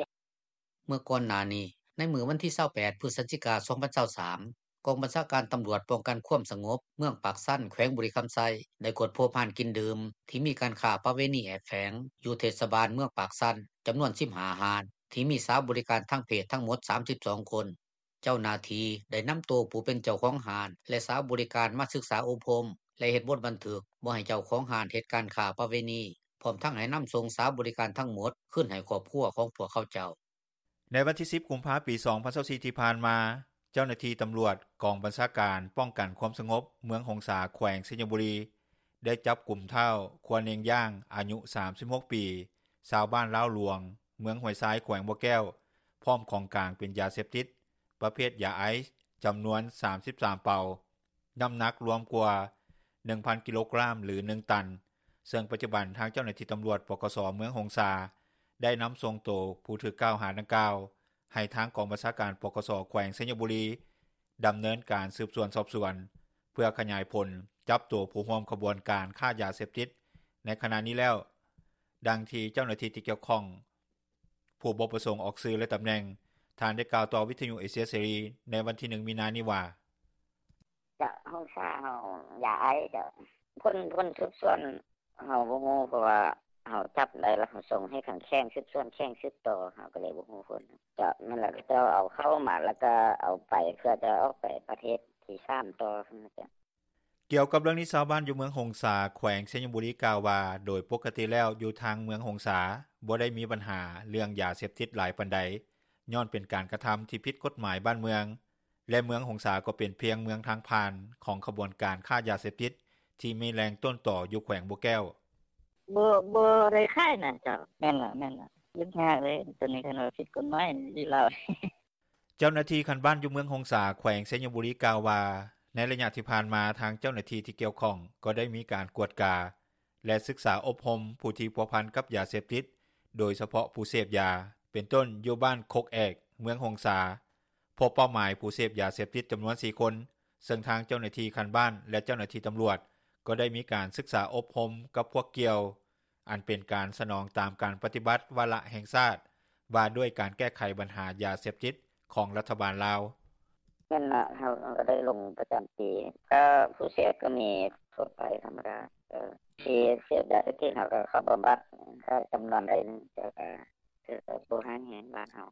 ເມື່ອກ່ອນໜ້ານີ້ ໃນມື້ວັນທີຊາວແປດ ພຶສຈິກາ ສອງພັນຊາວສາມ ກອງບັນຊາການຕຳຫຼວດປ້ອງກັນຄວາມສະຫງົບ ເມືອງປາກຊັນ ແຂວງບໍລິຄຳໄຊ ໄດ້ກວດພົບຮ້ານກິນດື່ມ ທີ່ມີການຄ້າປະເວນີແອບແຝງ ຢູ່ເທດສະບານເມືອງປາກຊັນ ຈຳນວນສິບຫ້າຮ້ານ ທີ່ມີສາວບໍລິການທາງເພດທັງໝົດສາມສິບສອງຄົນ. ເຈົ້າໜ້າທີ່ໄດ້ນຳໂຕຜູ້ເປັນເຈົ້າຂອງຮ້ານ ແລະ ສາວບໍລິການມາສຶກສາອົບຮົມ ແລະ ເຮັດບົດບັນທຶກ ບໍ່ໃຫ້ເຈົ້າຂອງຮ້ານເຮັດການຄ້າປະເວນີ ພ້ອມທັງໃຫ້ນຳສົ່ງສາວບໍລິການທັງໝົດ ຄືນໃຫ້ຄອບຄົວຂອງພວກເຂົາເຈົ້າ. ໃນວັນທີສິບ ກຸມພາ ປີສອງພັນຊາວສີ່ ທີ່ຜ່ານມາ, ເຈົ້າໜ້າທີ່ຕຳຫຼວດກອງບັນຊາການປ້ອງກັນຄວາມສະຫງົບ ເມືອງຫົງສາ ແຂວງໄຊຍະບູລີ ໄດ້ຈັບກຸມທ້າວ ຄົວເນັງຢ່າງ ອາຍຸສາມສິບຫົກປີ ຊາວບ້ານລາວຫຼວງ ເມືອງຫ້ວຍຊາຍ ແຂວງບໍ່ແກ້ວ ພ້ອມຂອງກາງເປັນຢາເສບຕິດ ປະເພດຢາໄອສ໌ ຈຳນວນສາມສິບສາມເປົາ, ນ້ຳໜັກລວມກວ່າໜຶ່ງພັນກິໂລກຣາມ ຫຼື ໜຶ່ງຕັນ, ເຊິ່ງປັດຈຸບັນທາງເຈົ້າໜ້າທີ່ຕຳຫຼວດ ປກສ ເມືອງຫົງສາ ໄດ້ນຳສົ່ງໂຕຜູ້ຖືກກ່າວຫາດັ່ງກ່າວ ໃຫ້ທາງກອງບັນຊາການ ປກສ ແຂວງໄຊຍະບູລີ ດຳເນີນການສືບສວນສອບສວນ ເພື່ອຂະຫຍາຍຜົນຈັບໂຕຜູ້ຮ່ວມຂະບວນການຄ້າຢາເສບຕິດໃນຂະນະນີ້ແລ້ວ. ດັ່ງທີ່ເຈົ້າໜ້າທີ່ທີ່ກ່ຽວຂ້ອງ ຜູ້ບໍ່ປະສົງອອກຊື່ ແລະ ຕຳແໜ່ງ ທ່ານໄດ້ກ່າວຕໍ່ວິທຍຸເອເຊຍເສລີ ໃນວັນທີໜຶ່ງ ມີນານີ້ວ່າ: “ເຈົ້າ ຫົງສາເຮົາ ຢາໄອສ໌ ເຈົ້າ ຜົນ ຜົນສືບສວນເຮົາບໍ່ຮູ້ ເພາະວ່າເຮົາຈັບໄດ້ແລ້ວ ເຮົາສົ່ງໃຫ້ທາງແຂວງສືບສວນ ແຂວງສືບຕໍ່ ເຮົາກໍເລີຍບໍ່ຮູ້ຜົນ. ເຈົ້າ ແມ່ນແລ້ວ ເຂົາເຈົ້າເອົາເຂົ້າມາ ແລ້ວກໍເອົາໄປ ເພື່ອຈະອອກໄປປະເທດທີສາມຕໍ່.” ກ່ຽວກັບເລື່ອງນີ້ ຊາວບ້ານຢູ່ເມືອງຫົງສາ ແຂວງໄຊຍະບູລີ ກ່າວວ່າ ໂດຍປົກກະຕິແລ້ວ ຢູ່ທາງເມືອງຫົງສາ ບໍ່ໄດ້ມີບັນຫາເລື່ອງຢາເສບຕິດຫຼາຍປານໃດ ຍ້ອນເປັນການກະທຳທີ່ຜິດກົດໝາຍບ້ານເມືອງ ແລະ ເມືອງຫົງສາກໍເປັນພຽງເມືອງທາງຜ່ານຂອງຂະບວນການຄ້າຢາເສບຕິດ ທີ່ມີແຫຼ່ງຕົ້ນຕໍຢູ່ແຂວງບໍ່ແກ້ວ. “ບໍ່ ບໍ່ໄດ້ຂາຍນະເຈົ້າ. ແມ່ນລະ ແມ່ນລະ ຫຍຸ້ງຍາກເລີຍ ໂຕນີ້ຄັນວ່າຜິດກົດໝາຍຢູ່ລາວ.” ເຈົ້າໜ້າທີ່ຂັ້ນບ້ານຢູ່ເມືອງຫົງສາ ແຂວງໄຊຍະບູລີ ກ່າວວ່າ ໃນໄລຍະທີ່ຜ່ານມາ ທາງເຈົ້າໜ້າທີ່ທີ່ກ່ຽວຂ້ອງ ກໍໄດ້ມີການກວດກາ ແລະ ສຶກສາອົບຮົມຜູ້ທີ່ພົວພັນກັບຢາເສບຕິດ ໂດຍສະເພາະຜູ້ເສບຢາ ເປັນຕົ້ນຢູ່ບ້ານຄົກແອກ ເມືອງຫົງສາ ພົບເປົ້າໝາຍຜູ້ເສບຢາເສບຕິດຈຳນວນສີ່ຄົນ, ເຊິ່ງທາງເຈົ້າໜ້າທີ່ຂັ້ນບ້ານ ແລະ ເຈົ້າໜ້າທີ່ຕຳຫຼວດ ກໍໄດ້ມີການສຶກສາອົບຮົມກັບພວກກ່ຽວ ອັນເປັນການສະໜອງຕາມການປະຕິບັດວາລະແຫ່ງຊາດ ວ່າດ້ວຍການແກ້ໄຂບັນຫາຢາເສບຕິດຂອງລັດຖະບານລາວ. “ແມ່ນລະ ເຮົາ ເຮົາກໍໄດ້ລົງປະຈຳທີ່ ກໍຜູ້ເສບກໍມີທົ່ວໄປທຳມະດາ ເອີ ທີ່ເສບຢາເສບຕິດ ເຮົາກໍເຂົ້າບຳບັດ ກໍຈຳນວນໃດໜຶ່ງ ແຕ່ກໍຖືວ່າບໍ່ຮ້າຍແຮງບ້ານເຮົາ.”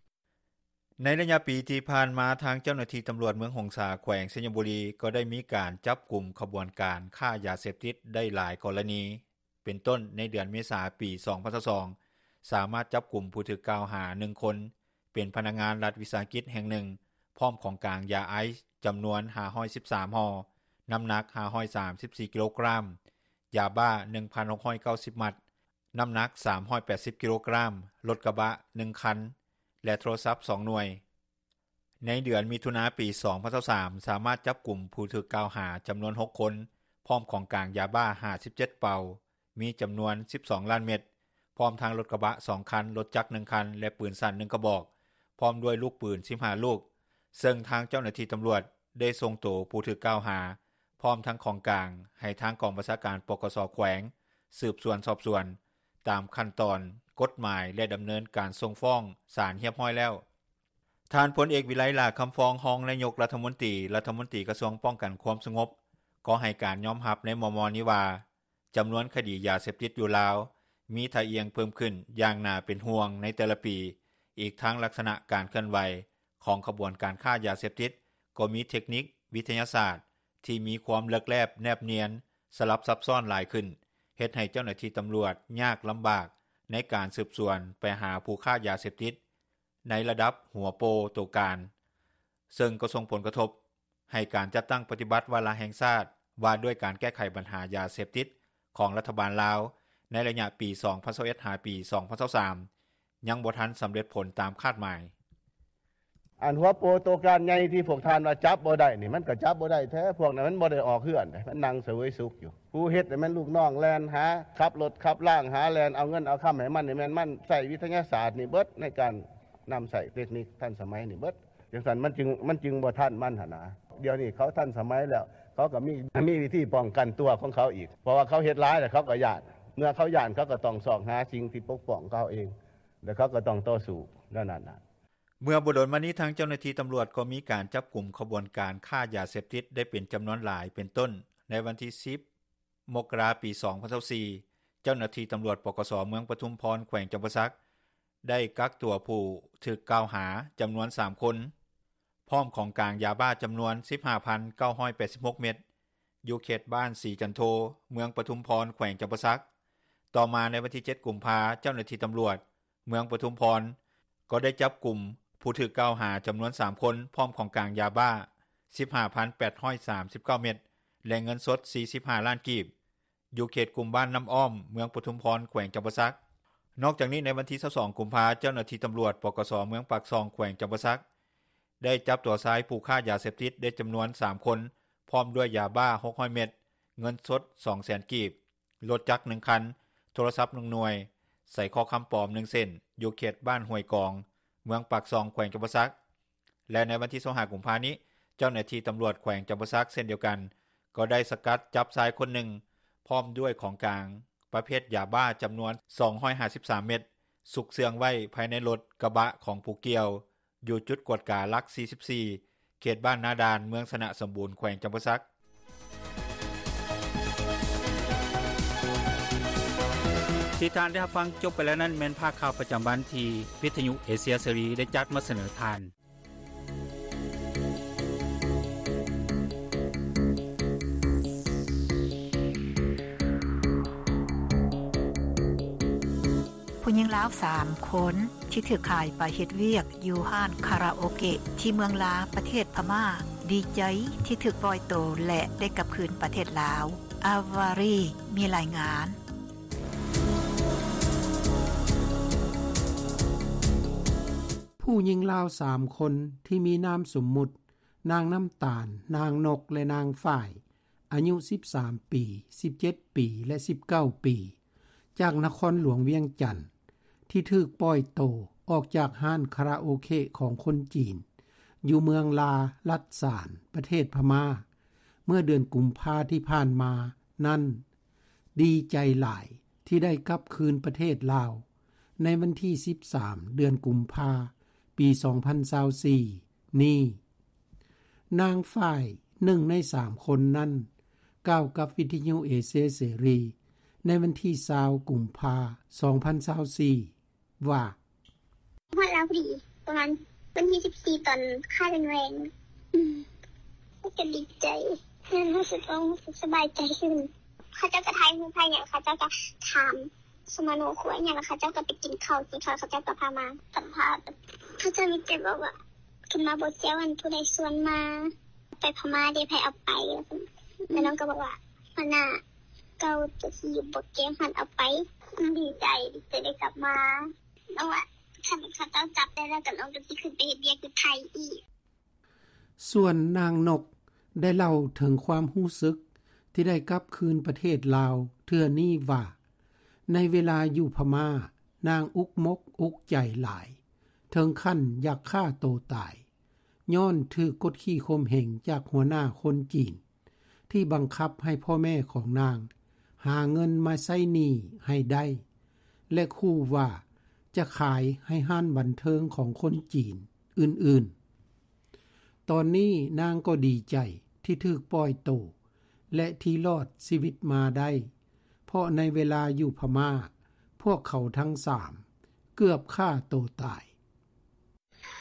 ໃນໄລຍະປີທີ່ຜ່ານມາ ທາງເຈົ້າໜ້າທີ່ຕຳຫຼວດເມືອງຫົງສາ ແຂວງໄຊຍະບູລີ ກໍໄດ້ມີການຈັບກຸມຂະບວນການຄ້າຢາເສບຕິດໄດ້ຫຼາຍກໍລະນີ ເປັນຕົ້ນໃນເດືອນເມສາ ປີສອງພັນຊາວສອງ ສາມາດຈັບກຸມຜູ້ຖືກກ່າວຫາໜຶ່ງຄົນ ເປັນພະນັກງານລັດວິສາຫະກິດແຫ່ງໜຶ່ງ ພ້ອມຂອງກາງຢາໄອສ໌ຈຳນວນຫ້າຮ້ອຍສິບສາມຫໍ່, ນ້ຳໜັກຫ້າຮ້ອຍສາມສິບສີ່ກິໂລກຣາມ, ຢາບ້າໜຶ່ງພັນຫົກຮ້ອຍເກົ້າສິບມັດ, ນ້ຳໜັກສາມຮ້ອຍແປດສິບກິໂລກຣາມ, ລົດກະບະໜຶ່ງຄັນ ແລະ ໂທລະສັບສອງໜ່ວຍ. ໃນເດືອນມິຖຸນາ ປີສອງພັນຊາວສາມ ສາມາດຈັບກຸມຜູ້ຖືກກ່າວຫາຈຳນວນຫົກຄົນ ພ້ອມຂອງກາງຢາບ້າຫ້າສິບເຈັດເປົາ, ມີຈຳນວນສິບສອງລ້ານເມັດ, ພ້ອມທັງລົດກະບະສອງຄັນ, ລົດຈັກໜຶ່ງຄັນ ແລະ ປືນສັ້ນໜຶ່ງກະບອກ, ພ້ອມດ້ວຍລູກປືນສິບຫ້າລູກ, ເຊິ່ງທາງເຈົ້າໜ້າທີ່ຕຳຫຼວດໄດ້ສົ່ງໂຕຜູ້ຖືກກ່າວຫາ ພ້ອມທັງຂອງກາງ ໃຫ້ທາງກອງບັນຊາການ ປກສ ແຂວງ ສືບສວນສອບສວນ ຕາມຂັ້ນຕອນກົດໝາຍ ແລະ ດຳເນີນການສົ່ງຟ້ອງສານຮຽບຮ້ອຍແລ້ວ. ທ່ານ ພົນເອກ ວິໄລ ຫຼ້າຄຳຟອງ ຮອງນາຍົກລັດຖະມົນຕີ, ລັດຖະມົນຕີກະຊວງປ້ອງກັນຄວາມສະຫງົບ ກໍໃຫ້ການຍອມຮັບໃນມໍ່ໆນີ້ວ່າ ຈຳນວນຄະດີຢາເສບຕິດຢູ່ລາວ ມີທ່າອ່ຽງເພີ່ມຂຶ້ນຢ່າງໜ້າເປັນຫ່ວງໃນແຕ່ລະປີ, ອີກທັງລັກສະນະການເຄື່ອນໄຫວຂອງຂະບວນການຄ້າຢາເສບຕິດ ກໍມີເທັກນິກວິທະຍາສາດທີ່ມີຄວາມເລິກແລບແນບນຽນ, ສະຫຼັບຊັບຊ້ອນຫຼາຍຂຶ້ນ, ເຮັດໃຫ້ເຈົ້າໜ້າທີ່ຕຳຫຼວດຍາກລຳບາກໃນການສືບສວນໄປຫາຜູ້ຄ້າຢາເສບຕິດໃນລະດັບຫົວໂປໂຕການ, ເຊິ່ງກໍສົ່ງຜົນກະທົບ ໃຫ້ການຈັດຕັ້ງປະຕິບັດວາລະແຫ່ງຊາດ ວ່າດ້ວຍການແກ້ໄຂບັນຫາຢາເສບຕິດຂອງລັດຖະບານລາວ ໃນໄລຍະປີສອງພັນຊາວເອັດ ຫາປີສອງພັນຊາວສາມ ຍັງບໍ່ທັນສຳເລັດຜົນຕາມຄາດໝາຍ. ອັນຫົວໂປໂຕການໃຫຍ່ທີ່ພວກທ່ານວ່າຈັບບໍ່ໄດ້ນີ້ ມັນກໍຈັບບໍ່ໄດ້ແທ້, ພວກນັ້ນມັນບໍ່ໄດ້ອອກເຮືອນເດ້, ມັນນັ່ງສະເຫວີຍສຸກຢູ່. ຜູ້ເຮັດນີ້ແມ່ນລູກນ້ອງແລ່ນຫາ, ຂັບລົດຂັບລາງຫາ, ແລ່ນເອົາເງິນເອົາຄຳໃຫ້ມັນ, ນີ້ແມ່ນມັນໃຊ້ວິທະຍາສາດນີ້ເບິດ ໃນການນຳໃຊ້ເຕັກນິກທັນສະໄໝນີ້ເບິດ. ຈັ່ງຊັ້ນມັນຈຶ່ງ ມັນຈຶ່ງບໍ່ທັນມັນຫັ້ນນະ. ດຽວນີ້ເຂົາທັນສະໄໝແລ້ວ, ເຂົາກໍມີ ມີວິທີປ້ອງກັນຕົວຂອງເຂົາອີກ, ເພາະວ່າເຂົາເຮັດຫຼາຍແລ້ວເຂົາກໍຢ້ານ, ເມື່ອເຂົາຢ້ານເຂົາກໍຕ້ອງຊອກຫາສິ່ງທີ່ປົກປ້ອງເຂົາເອງ ແລ້ວເຂົາກໍຕ້ອງຕໍ່ສູ້ແນວນັ້ນນະ. ເມື່ອບໍ່ດົນມານີ້ ທາງເຈົ້າໜ້າທີ່ຕຳຫຼວດກໍມີການຈັບກຸມຂະບວນການຄ້າຢາເສບຕິດໄດ້ເປັນຈຳນວນຫຼາຍ ເປັນຕົ້ນໃນວັນທີສິບ ມົກກະລາ ປີສອງພັນຊາວສີ່ ເຈົ້າໜ້າທີ່ຕຳຫຼວດ ປກສ ເມືອງປະທຸມພອນ ແຂວງຈຳປາສັກ ໄດ້ກັກຕົວຜູ້ຖືກກ່າວຫາຈຳນວນສາມຄົນ ພ້ອມຂອງກາງຢາບ້າຈຳນວນສິບຫ້າພັນເກົ້າຮ້ອຍແປດສິບຫົກເມັດ ຢູ່ເຂດບ້ານສີຈັນໂທ ເມືອງປະທຸມພອນ ແຂວງຈຳປາສັກ. ຕໍ່ມາໃນວັນທີເຈັດ ກຸມພາ ເຈົ້າໜ້າທີ່ຕຳຫຼວດເມືອງປະທຸມພອນ ກໍໄດ້ຈັບກຸມຜູ້ຖືກກ່າວຫາຈຳນວນສາມຄົນ ພ້ອມຂອງກາງຢາບ້າສິບຫ້າພັນແປດຮ້ອຍສາມສິບເກົ້າເມັດ ແລະ ເງິນສົດສີ່ສິບຫ້າລ້ານກີບ ຢູ່ເຂດກຸ່ມບ້ານນ້ຳອ້ອມ ເມືອງປະທຸມພອນ ແຂວງຈຳປາສັກ. ນອກຈາກນີ້ ໃນວັນທີຊາວສອງ ກຸມພາ ເຈົ້າໜ້າທີ່ຕຳຫຼວດ ປກສ ເມືອງປາກຊ່ອງ ແຂວງຈຳປາສັກ ໄດ້ຈັບຕົວຊາຍຜູ້ຄ້າຢາເສບຕິດໄດ້ຈຳນວນສາມຄົນ ພ້ອມດ້ວຍຢາບ້າຫົກຮ້ອຍເມັດ, ເງິນສົດສອງແສນກີບ, ລົດຈັກໜຶ່ງຄັນ, ໂທລະສັບໜຶ່ງໜ່ວຍ, ສາຍຄໍຄຳປອມໜຶ່ງເສັ້ນ ຢູ່ເຂດບ້ານຫ້ວຍກອງ ເມືອງປາກຊ່ອງ ແຂວງຈຳປາສັກ. ແລະ ໃນວັນທີຊາວຫ້າ ກຸມພານີ້ ເຈົ້າໜ້າທີ່ຕຳຫຼວດແຂວງຈຳປາສັກເຊັ່ນດຽວກັນ ກໍໄດ້ສະກັດຈັບຊາຍຄົນໜຶ່ງ ພ້ອມດ້ວຍຂອງກາງປະເພດຢາບ້າຈຳນວນສອງຮ້ອຍຫ້າສິບສາມເມັດ ຊຸກເຊື່ອງໄວ້ພາຍໃນລົດກະບະຂອງຜູ້ກ່ຽວ ຢູ່ຈຸດກວດກາຫຼັກສີ່ສິບສີ່ ເຂດບ້ານນາດານ ເມືອງຊະນະສົມບູນ ແຂວງຈຳປາສັກ. ທີ່ທ່ານໄດ້ຮັບຟັງຈົບໄປແລ້ວນັ້ນ ແມ່ນພາກຂ່າວປະຈຳວັນທີ່ວິທະຍຸເອເຊຍເສລີໄດ້ຈັດມາສະເໜີທ່ານ. ຜູ້ຍິງລາວສາມຄົນທີ່ຖືກຂາຍໄປເຮັດວຽກຢູ່ຮ້ານຄາຣາໂອເກະທີ່ເມືອງລາ ປະເທດພະມ້າ ດີໃຈທີ່ຖືກປ່ອຍໂຕ ແລະ ໄດ້ກັບຄືນປະເທດລາວ. ອາວາຣີ ມີລາຍງານ. ຜູ້ຍິງລາວສາມຄົນທີ່ມີນາມສົມມຸດ ນາງນ້ຳຕານ, ນາງນົກ ແລະ ນາງຝ້າຍ ອາຍຸສິບສາມປີ, ສິບເຈັດປີ ແລະ ສິບເກົ້າປີ ຈາກນະຄອນຫຼວງວຽງຈັນ ທີ່ຖືກປ່ອຍໂຕອອກຈາກຮ້ານຄາຣາໂອເກະຂອງຄົນຈີນ ຢູ່ເມືອງລາ ລັດສານ ປະເທດພະມ້າ ເມື່ອເດືອນກຸມພາທີ່ຜ່ານມານັ້ນ ດີໃຈຫຼາຍທີ່ໄດ້ກັບຄືນປະເທດລາວ ໃນວັນທີສິບສາມ ເດືອນກຸມພາ ປີສອງພັນຊາວສີ່ນີ້. ນາງຝ້າຍ ໜຶ່ງໃນສາມຄົນນັ້ນ ກ່າວກັບວິທະຍຸເອເຊຍເສລີ ໃນວັນທີຊາວ ກຸມພາ ສອງພັນຊາວສີ່ ວ່າ ຮອດລາວພໍດີ ປະມານວັນທີສິບສີ່ ຕອນຄ່າແລງໆ ອືມ ກໍດີໃຈ ແມ່ນຮູ້ສຶກ ເອີ ຮູ້ສຶກສະບາຍໃຈຂຶ້ນ. ເຂົາເຈົ້າກໍຖ່າຍຮູບ ຖ່າຍຫຍັງ ເຂົາເຈົ້າກໍຖາມສະມະໂນຄົວອີ່ຫຍັງ ແລ້ວເຂົາເຈົ້າກໍໄປກິນເຂົ້າ ກິນເຂົ້າ ເຂົາເຈົ້າກໍພາມາສຳພາດ. ເຂົາເຈົ້າມີແຕ່ບອກວ່າ ຂຶ້ນມາບໍ່ແຈວ ອັນຜູ້ໃດຊວນມາ ໄປພະມ້າເດ ໃຜເອົາໄປ ແລ້ວນ້ອງກໍບອກວ່າ ຫົວໜ້າເກົ່າຕົວທີ່ຢູ່ບໍ່ແກ້ວຫັ້ນເອົາໄປ. ດີໃຈ ດີໃຈໄດ້ກັບມາ. ນ້ອງວ່າ ຄັນເຂົາເຈົ້າຈັບໄດ້ແລ້ວ ກໍນ້ອງກໍຊິຂຶ້ນໄປເຮັດວຽກຢູ່ໄທອີກ. ສ່ວນນາງນົກ ໄດ້ເລົ່າເຖິງຄວາມຮູ້ສຶກທີ່ໄດ້ກັບຄືນປະເທດລາວເທື່ອນີ້ວ່າ ໃນເວລາຢູ່ພະມ້າ, ນາງອຸກມົກອຸກໃຈຫຼາຍ, ເຖິງຂັ້ນຢາກຂ້າໂຕຕາຍ, ຍ້ອນຖືກກົດຂີ່ຂົ່ມເຫງຈາກຫົວໜ້າຄົນຈີນ ທີ່ບັງຄັບໃຫ້ພໍ່ແມ່ຂອງນາງຫາເງິນມາໃຊ້ໜີ້ໃຫ້ໄດ້ ແລະ ຂູ່ວ່າຈະຂາຍໃຫ້ຮ້ານບັນເທີງຂອງຄົນຈີນອື່ນໆ. ຕອນນີ້ນາງກໍດີໃຈທີ່ຖືກປ່ອຍໂຕ ແລະ ທີ່ລອດຊີວິດມາໄດ້, ເພາະໃນເວລາຢູ່ພະມ້າ, ພວກເຂົາທັງສາມເກືອບຂ້າໂຕຕາຍ.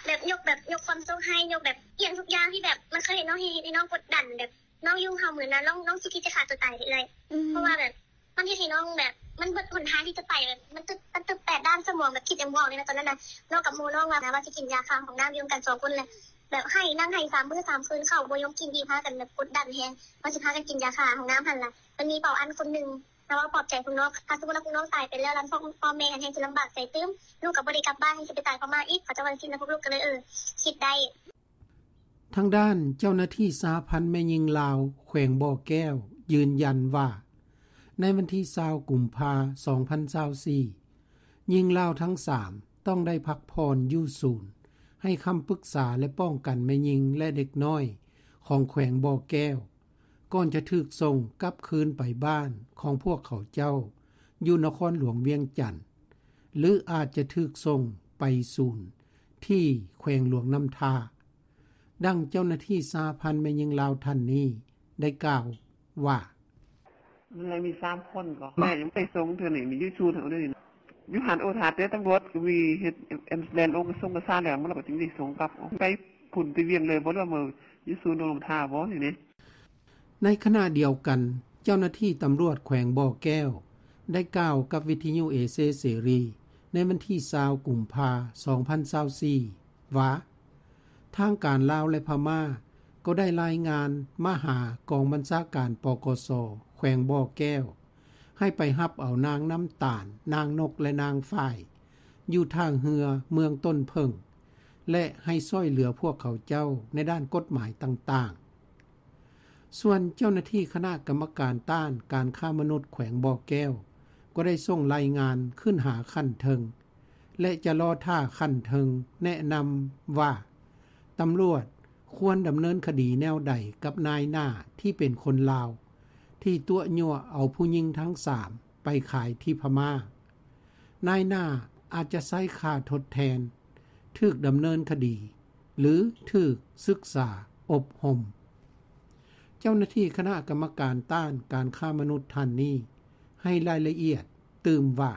ແບບຍົກ ແບບຍົກຄວາມໂຊກໃຫ້, ຍົກແບບອີ່ຫຍັງທຸກຢ່າງທີ່ແບບມັນເຄີຍເຮັດນ້ອງ, ເຮັດໃຫ້ນ້ອງກົດດັນ, ແບບນ້ອງຢູ່ເຮົາມື້ນັ້ນ ນ້ອງ ນ້ອງຊິຄິດຈະຂ້າຕົວຕາຍເລີຍ. ອືມ ເພາະວ່າແບບມັນເຮັດໃຫ້ນ້ອງແບບ ມັນເບິດຫົນທາງທີ່ຈະໄປ, ແບບມັນຕຶບ ມັນຕຶບແປດດ້ານສະໝອງ, ແບບຄິດຫຍັງບໍ່ອອກເລີຍນະຕອນນັ້ນນະ. ເວົ້າກັບໝູ່ນ້ອງວ່າ ວ່າຊິກິນຢາຂ້າຫ້ອງນ້ຳຢູ່ນຳກັນສອງຄົນແຫຼະ, ແບບໄຫ້ ນັ່ງໄຫ້ສາມມື້ສາມຄືນ, ເຂົ້າບໍ່ຍອມກິນອີກ, ພາກັນແບບກົດດັນແຮງ ວ່າຊິພາກັນກິນຢາຂ້າຫ້ອງນ້ຳຫັ້ນລະ. ມັນມີເປົາອັນຄົນໜຶ່ງ ເຮົາເວົ້າປອບໃຈພວກນ້ອງ, ຖ້າສົມມຸດວ່າພວກນ້ອງຕາຍໄປແລ້ວ ລະພວກພໍ່ແມ່ຫັ້ນແຮ່ງຊິລຳບາກໃຈຕື່ມ, ລູກກໍບໍ່ໄດ້ກັບບ້ານ, ຊິໄປຕາຍພະມ້າອີກ, ເຂົາເຈົ້າວ່າຈັ່ງຊີ້ນະ, ພວກລູກກໍເລີຍ ເອີ ຄິດໄດ້. ທາງດ້ານເຈົ້າໜ້າທີ່ສະຫະພັນແມ່ຍິງລາວແຂວງບໍ່ແກ້ວຢືນຢັນວ່າ ໃນວັນທີຊາວ ກຸມພາ ສອງພັນຊາວສີ່ ຍິງລາວທັງສາມຕ້ອງໄດ້ພັກຜ່ອນຢູ່ສູນໃຫ້ຄຳປຶກສາ ແລະ ປ້ອງກັນແມ່ຍິງ ແລະ ເດັກນ້ອຍຂອງແຂວງບໍ່ແກ້ວ ກ່ອນຈະຖືກສົ່ງກັບຄືນໄປບ້ານຂອງພວກເຂົາເຈົ້າຢູ່ນະຄອນຫຼວງວຽງຈັນ ຫຼື ອາດຈະຖືກສົ່ງໄປສູນທີ່ແຂວງຫຼວງນ້ຳທາ. ດັ່ງເຈົ້າໜ້າທີ່ສະຫະພັນແມ່ຍິງລາວທ່ານນີ້ໄດ້ກ່າວວ່າ: ມັນເລີຍມີສາມຄົນກໍ ແມ່ຍັງໄປສົ່ງເທື່ອນີ້ ມີຢູ່ສູນເຮົາເດ້. ຢູ່ຫັ້ນໂອ ຖ້າແຕ່ຕຳຫຼວດກໍມີເຮັດແອມບູແລນລົງ ກະຊົງກະຊາແລ້ວ ມັນກໍຈຶ່ງໄດ້ສົ່ງກັບ ໄປພຸ້ນໄປວຽງເລີຍບໍ່ ຫຼືວ່າຢູ່ສູນໂຮງນ້ຳທາບໍ່ນີ້ເດ້. ໃນຂະນະດຽວກັນ, ເຈົ້າໜ້າທີ່ຕຳຫຼວດແຂວງບໍ່ແກ້ວໄດ້ກ່າວກັບວິທະຍຸເອເຊຍເສລີໃນວັນທີຊາວ ກຸມພາ ສອງພັນຊາວສີ່ ວ່າ ທາງການລາວ ແລະ ພະມ້າກໍໄດ້ລາຍງານມາຫາກອງບັນຊາການ ປກສ ແຂວງບໍ່ແກ້ວ ໃຫ້ໄປຮັບເອົານາງນ້ຳຕານ, ນາງນົກ ແລະ ນາງຝ້າຍ ຢູ່ທ່າເຮືອເມືອງຕົ້ນເຜິ້ງ ແລະ ໃຫ້ຊ່ວຍເຫຼືອພວກເຂົາເຈົ້າໃນດ້ານກົດໝາຍຕ່າງໆ. ສ່ວນເຈົ້າໜ້າທີ່ຄະນະກຳມະການຕ້ານການຄ້າມະນຸດແຂວງບໍ່ແກ້ວ ກໍໄດ້ສົ່ງລາຍງານຂຶ້ນຫາຂັ້ນເທິງ ແລະ ຈະລໍຖ້າຂັ້ນເທິງແນະນຳວ່າ ຕຳຫຼວດຄວນດຳເນີນຄະດີແນວໃດກັບນາຍໜ້າທີ່ເປັນຄົນລາວ ທີ່ຕົວະຍົວະເອົາຜູ້ຍິງທັງສາມໄປຂາຍທີ່ພະມ້າ. ນາຍໜ້າອາດຈະໃຊ້ຄ່າທົດແທນ, ຖືກດຳເນີນຄະດີ ຫຼື ຖືກສຶກສາອົບຮົມ. ເຈົ້າໜ້າທີ່ຄະນະກຳມະການຕ້ານການຄ້າມະນຸດທ່ານນີ້ໃຫ້ລາຍລະອຽດຕື່ມວ່າ: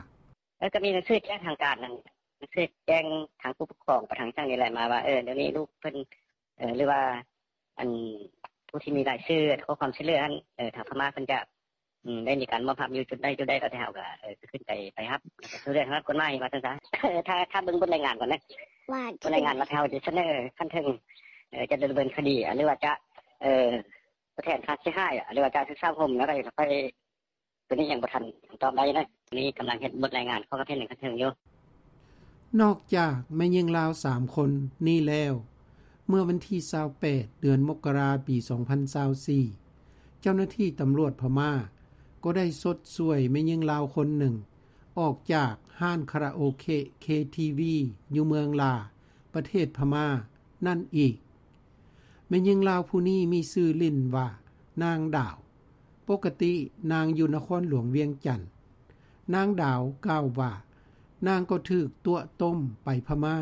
ເອີ ກໍມີໜັງສືແຈ້ງທາງການນັ້ນ, ໜັງສືແຈ້ງທາງຜູ້ປົກຄອງໄປທາງຈັ່ງນີ້ແຫຼະ ມາວ່າ ເອີ ດຽວນີ້ລູກເພິ່ນ ເອີ ຫຼືວ່າ ອັນ ຜູ້ທີ່ມີລາຍຊື່ຂໍຄວາມຊ່ວຍເຫຼືອຫັ້ນ ເອີ ທາງພະມ້າເພິ່ນຈະ ອືມ ໄດ້ມີການມອບຮັບຢູ່ຈຸດໃດຈຸດໃດ ແລ້ວແຕ່ເຮົາກໍ ເອີ ຂຶ້ນໄປ ໄປຮັບຊ່ວຍເຫຼືອທາງດ້ານກົດໝາຍວ່າຊັ້ນຊະ. ຖ້າ ຖ້າເບິ່ງບົດລາຍງານກ່ອນເດີ ບົດລາຍງານວ່າເຮົາຈະສະເໜີຂັ້ນເທິງ ເອີ ຈະດຳເນີນຄະດີ ຫຼືວ່າຈະ ເອີ ທົດແທນຄ່າເສຍຫາຍ ຫຼືວ່າຈະສຶກສາອົບຮົມ ແລ້ວກໍຄ່ອຍ ຕົວນີ້ຍັງບໍ່ທັນຕອບໄດ້ນະ, ນີ້ກຳລັງເຮັດບົດລາຍງານ ຂໍຄຳເຫັນທາງຂັ້ນເທິງຢູ່. ນອກຈາກແມ່ຍິງລາວສາມຄົນນີ້ແລ້ວ, ເມື່ອວັນທີຊາວແປດ ເດືອນມົກກະລາ ປີສອງພັນຊາວສີ່ ເຈົ້າໜ້າທີ່ຕຳຫຼວດພະມ້າກໍໄດ້ຊົດຊ່ວຍແມ່ຍິງລາວຄົນໜຶ່ງ ອອກຈາກຮ້ານຄາຣາໂອເກະ ເຄທີວີ ຢູ່ເມືອງລາ ປະເທດພະມ້ານັ້ນອີກ. ແມ່ຍິງລາວຜູ້ນີ້ມີຊື່ຫຼິ້ນວ່າ ນາງດາວ. ປົກກະຕິນາງຢູ່ນະຄອນຫຼວງວຽງຈັນ. ນາງດາວກ່າວວ່າ ນາງກໍຖືກຕົວະຕົ້ມໄປພະມ້າ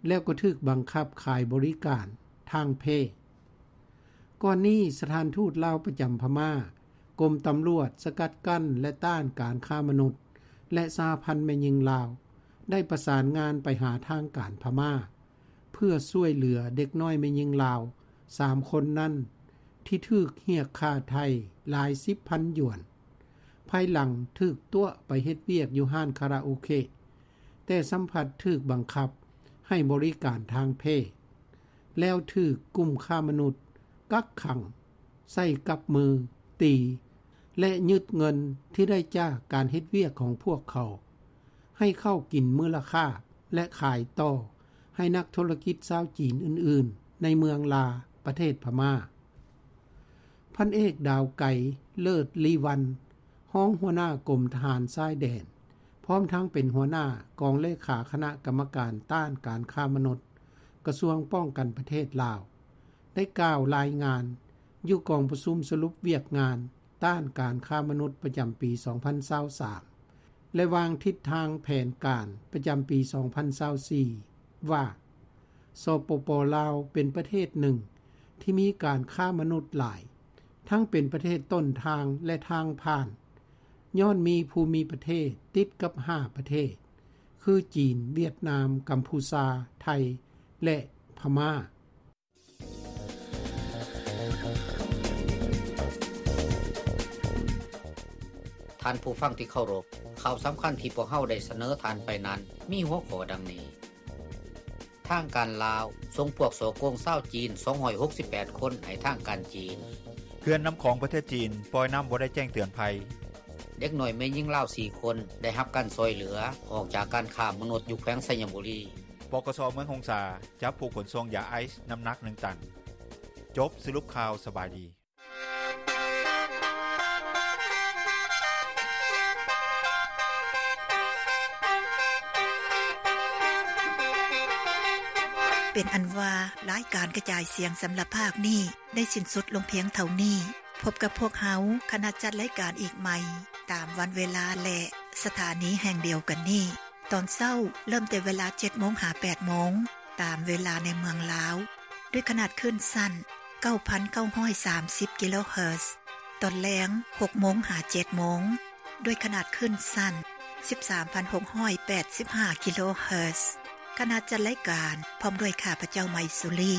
ແລ້ວກໍຖືກບັງຄັບຂາຍບໍລິການທາງເພດ. ກ່ອນນີ້ສະຖານທູດລາວປະຈຳພະມ້າ, ກົມຕຳຫຼວດສະກັດກັ້ນ ແລະ ຕ້ານການຄ້າມະນຸດ ແລະ ສະຫະພັນແມ່ຍິງລາວ ໄດ້ປະສານງານໄປຫາທາງການພະມ້າ ເພື່ອຊ່ວຍເຫຼືອເດັກນ້ອຍແມ່ຍິງລາວສາມຄົນນັ້ນ ທີ່ຖືກຮຽກຄ່າໄຖ່ຫຼາຍສິບພັນຢວນ ພາຍຫຼັງຖືກຕົວະໄປເຮັດວຽກຢູ່ຮ້ານຄາຣາໂອເກະ, ແຕ່ຊໍ້າພັດຖືກບັງຄັບໃຫ້ບໍລິການທາງເພດ, ແລ້ວຖືກກຸ່ມຄ້າມະນຸດກັກຂັງໃສ່ກັບມື, ຕີ ແລະ ຍຶດເງິນທີ່ໄດ້ຈາກການເຮັດວຽກຂອງພວກເຂົາ ໃຫ້ເຂົ້າກິນມື້ລະຄາບ ແລະ ຂາຍຕໍ່ໃຫ້ນັກທຸລະກິດຊາວຈີນອື່ນໆ ໃນເມືອງລາ ປະເທດພະມ້າ. ພັນເອກ ດາວໄກ ເລີດລີວັນ, ຮອງຫົວໜ້າກົມທະຫານຊາຍແດນ ພ້ອມທັງເປັນຫົວໜ້າກອງເລຂາຄະນະກຳມະການຕ້ານການຄ້າມະນຸດ ກະຊວງປ້ອງກັນປະເທດລາວ ໄດ້ກ່າວລາຍງານຢູ່ກອງປະຊຸມສະຫຼຸບວຽກງານຕ້ານການຄ້າມະນຸດປະຈຳປີສອງພັນຊາວສາມ ແລະ ວາງທິດທາງແຜນການປະຈຳປີສອງພັນຊາວສີ່ ວ່າ ສປປ ລາວ ເປັນປະເທດໜຶ່ງທີ່ມີການຄ້າມະນຸດຫຼາຍ, ທັງເປັນປະເທດຕົ້ນທາງ ແລະ ທາງຜ່ານ, ຍ້ອນມີພູມິປະເທດຕິດກັບຫ້າປະເທດ ຄື ຈີນ, ຫວຽດນາມ, ກຳພູຊາ, ໄທ ແລະ ພະມ້າ. ທ່ານຜູ້ຟັງທີ່ເຄົາລົບ, ຂ່າວສຳຄັນທີ່ພວກເຮົາໄດ້ສະເໜີທ່ານໄປນັ້ນ ມີຫົວຂໍ້ດັ່ງນີ້: ທາງການລາວສົ່ງພວກສໍ້ໂກງຊາວຈີນສອງຮ້ອຍຫົກສິບແປດຄົນໃຫ້ທາງການຈີນ. ເຂື່ອນນ້ຳຂອງປະເທດຈີນປ່ອຍນ້ຳບໍ່ໄດ້ແຈ້ງເຕືອນໄພ. ເດັກນ້ອຍແມ່ຍິງລາວສີ່ຄົນໄດ້ຮັບການຊ່ອຍເຫຼືອອອກຈາກການຄ້າມະນຸດຢູ່ແຂວງໄຊຍະບູລີ. ປກສ ເມືອງຫົງສາ ຈັບຜູ້ຂົນສົ່ງຢາໄອສ໌ນ້ຳໜັກໜຶ່ງຕັນ. ຈົບສະຫຼຸບຂ່າວ. ສະບາຍດີ. ເປັນອັນວ່າ ລາຍການກະຈາຍສຽງສຳລັບພາກນີ້ ໄດ້ສິ້ນສຸດລົງພຽງເທົ່ານີ້. ພົບກັບພວກເຮົາ ຄະນະຈັດລາຍການອີກໃໝ່ ຕາມວັນເວລາ ແລະ ສະຖານີແຫ່ງດຽວກັນນີ້. ຕອນເຊົ້າເລີ່ມແຕ່ເວລາເຈັດໂມງຫາແປດໂມງ ຕາມເວລາໃນເມືອງລາວ ດ້ວຍຂະໜາດຄື້ນສັ້ນເກົ້າພັນເກົ້າຮ້ອຍສາມສິບກິໂລເຮີດ. ຕອນແລງຫົກໂມງຫາເຈັດໂມງ ດ້ວຍຂະໜາດຄື້ນສັ້ນສິບສາມພັນຫົກຮ້ອຍແປດສິບຫ້າກິໂລເຮີດ. ຄະນະຈັດລາຍການ ພ້ອມດ້ວຍຂ້າພະເຈົ້າ ໄມຊູລີ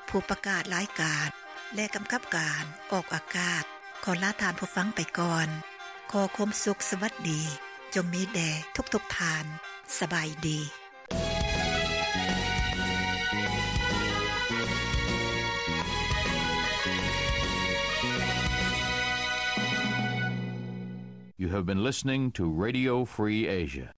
ຜູ້ປະກາດລາຍການ ແລະ ກຳກັບການອອກອາກາດ ຂໍລາທ່ານຜູ້ຟັງໄປກ່ອນ. ຂໍຄວາມສຸກສະຫວັດດີ ຈົ່ງມີແດ່ທຸກໆທ່ານ. ສະບາຍດີ. You have been listening to Radio Free Asia.